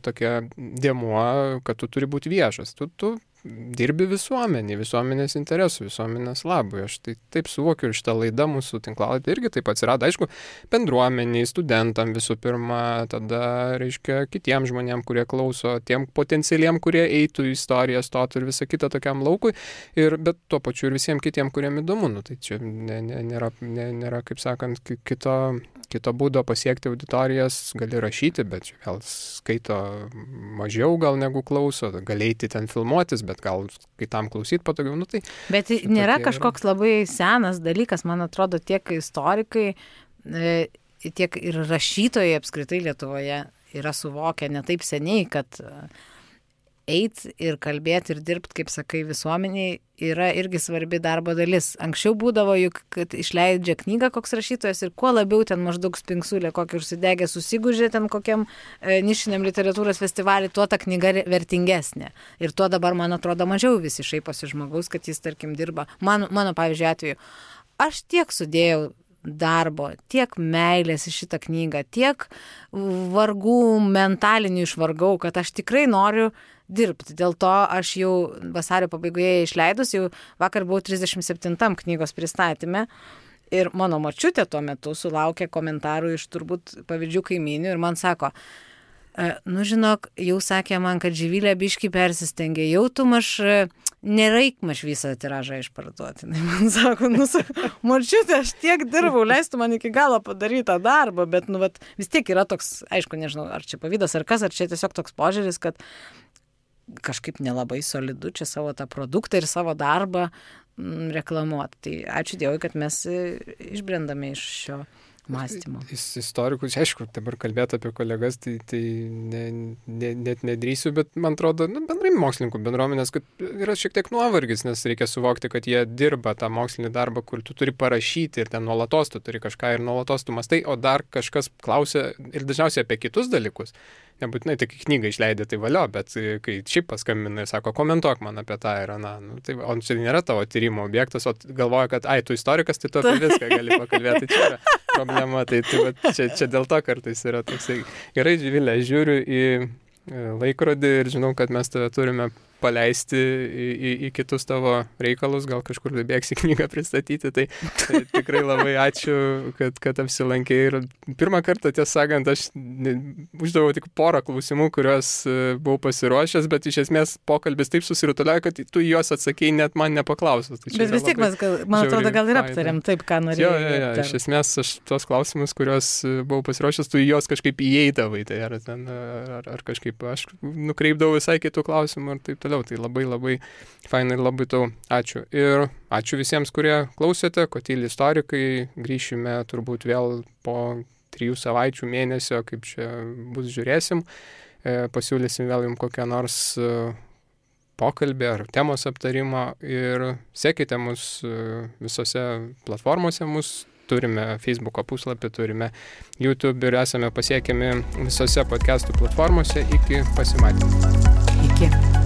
tokia dėmuo, kad tu turi būti viešas. Tu dirbi visuomenės interesų, visuomenės labui. Aš tai taip suvokiu ir šitą laidą mūsų tinklalapį irgi taip atsirado, aišku, bendruomeniai, studentam visų pirma, tada, reiškia, kitiem žmonėm, kurie klauso, tiem potencialiem, kurie eitų į istoriją, stotų ir visą kitą tokiam laukui, bet tuo pačiu ir visiems kitiem, kuriem įdomu. Nu, tai čia nėra, kaip sakant, kito būdo pasiekti auditorijas, gali rašyti, bet vėl skaito mažiau gal negu klauso, gali eiti ten filmuotis, bet gal kitam klausyti patogiau. Nu, tai, bet nėra kažkoks labai senas dalykas, man atrodo, tiek istorikai, tiek ir rašytojai apskritai Lietuvoje yra suvokę ne taip seniai, kad eit ir kalbėti ir dirbti, kaip sakai, visuomeniai yra irgi svarbi darbo dalis. Anksčiau būdavo juk, kad išleidžia knygą koks rašytojas ir kuo labiau ten maždaug spingsulė, kokį užsidegę susigužė ten kokiam nišiniam literatūros festivalį, tuo ta knyga vertingesnė. Ir tuo dabar, man atrodo, mažiau visi šaiposi žmogaus, kad jis, tarkim, dirba. Mano pavyzdžiui, atveju, aš tiek sudėjau darbo, tiek meilės į šitą knygą, tiek vargų mentalinių išvargau, kad aš tikrai noriu dirbti. Dėl to aš jau vasario pabaigoje išleidus, jau vakar buvau 37 knygos pristatyme ir mano močiutė tuo metu sulaukė komentarų iš turbūt pavydžių kaimynių ir man sako, nu žinok, jau sakė man, kad Živilė biškį persistengė, jau tu nereik visą tiražą išparduoti. Man sako, močiutė, aš tiek dirbau, leistų man iki galo padaryti tą darbą, bet vis tiek yra toks, aišku, nežinau, ar čia pavydas ar kas, ar čia tiesiog toks požiūris, kad kažkaip nelabai solidu čia savo tą produktą ir savo darbą reklamuoti. Tai ačiū Dievui, kad mes išbrendame iš šio mąstymo. Istorikus, aišku, dabar kalbėti apie kolegas, tai net nedrįsiu, bet man atrodo, bendrai mokslininkų bendruomenės, kad yra šiek tiek nuovargis, nes reikia suvokti, kad jie dirba tą mokslinį darbą, kur tu turi parašyti ir ten nuolatos tu turi kažką ir nuolatos tu mastai, o dar kažkas klausia ir dažniausiai apie kitus dalykus. Nebūtinai tik knygą išleidė, tai valio, bet kai šiaip paskambina ir sako, komentuok man apie tą ir aną, tai, o čia nėra tavo tyrimo objektas, o galvoja, kad tu istorikas, tai tu apie viską gali pakalbėti, tai čia yra problema, tai čia dėl to kartais yra toksai. Gerai, Živilė, žiūriu į laikrodį ir žinau, kad mes tave turime paleisti į kitus tavo reikalus, gal kažkur bėgsi knygą pristatyti, tai tikrai labai ačiū, kad apsilankei ir pirmą kartą, tiesą sakant, aš uždaviau tik porą klausimų, kuriuos buvau pasiruošęs, bet iš esmės pokalbis taip susirutuliojo, kad tu juos atsakėjai net man nepaklausus. Tai bet vis tiek mes, man atrodo, gal ir aptarėm taip, ką norėjau. Jo, iš esmės aš tos klausimus, kuriuos buvau pasiruošęs, tu juos kažkaip įeidavai, tai ar kažkaip aš nukreipdavau visai kitų klausimų ir taip toliau. Tai labai labai fainai ir labai tau ačiū. Ir ačiū visiems, kurie klausėte, Kotyli istorikai. Grįšime turbūt vėl po 3 savaičių, mėnesio, kaip čia bus, žiūrėsim. Pasiūlysim vėl jums kokią nors pokalbį ar temos aptarimą ir sekite mus visose platformose. Turime Facebook'o puslapį, turime YouTube ir esame pasiekiami visose podcastų platformose. Iki pasimatymų. Iki.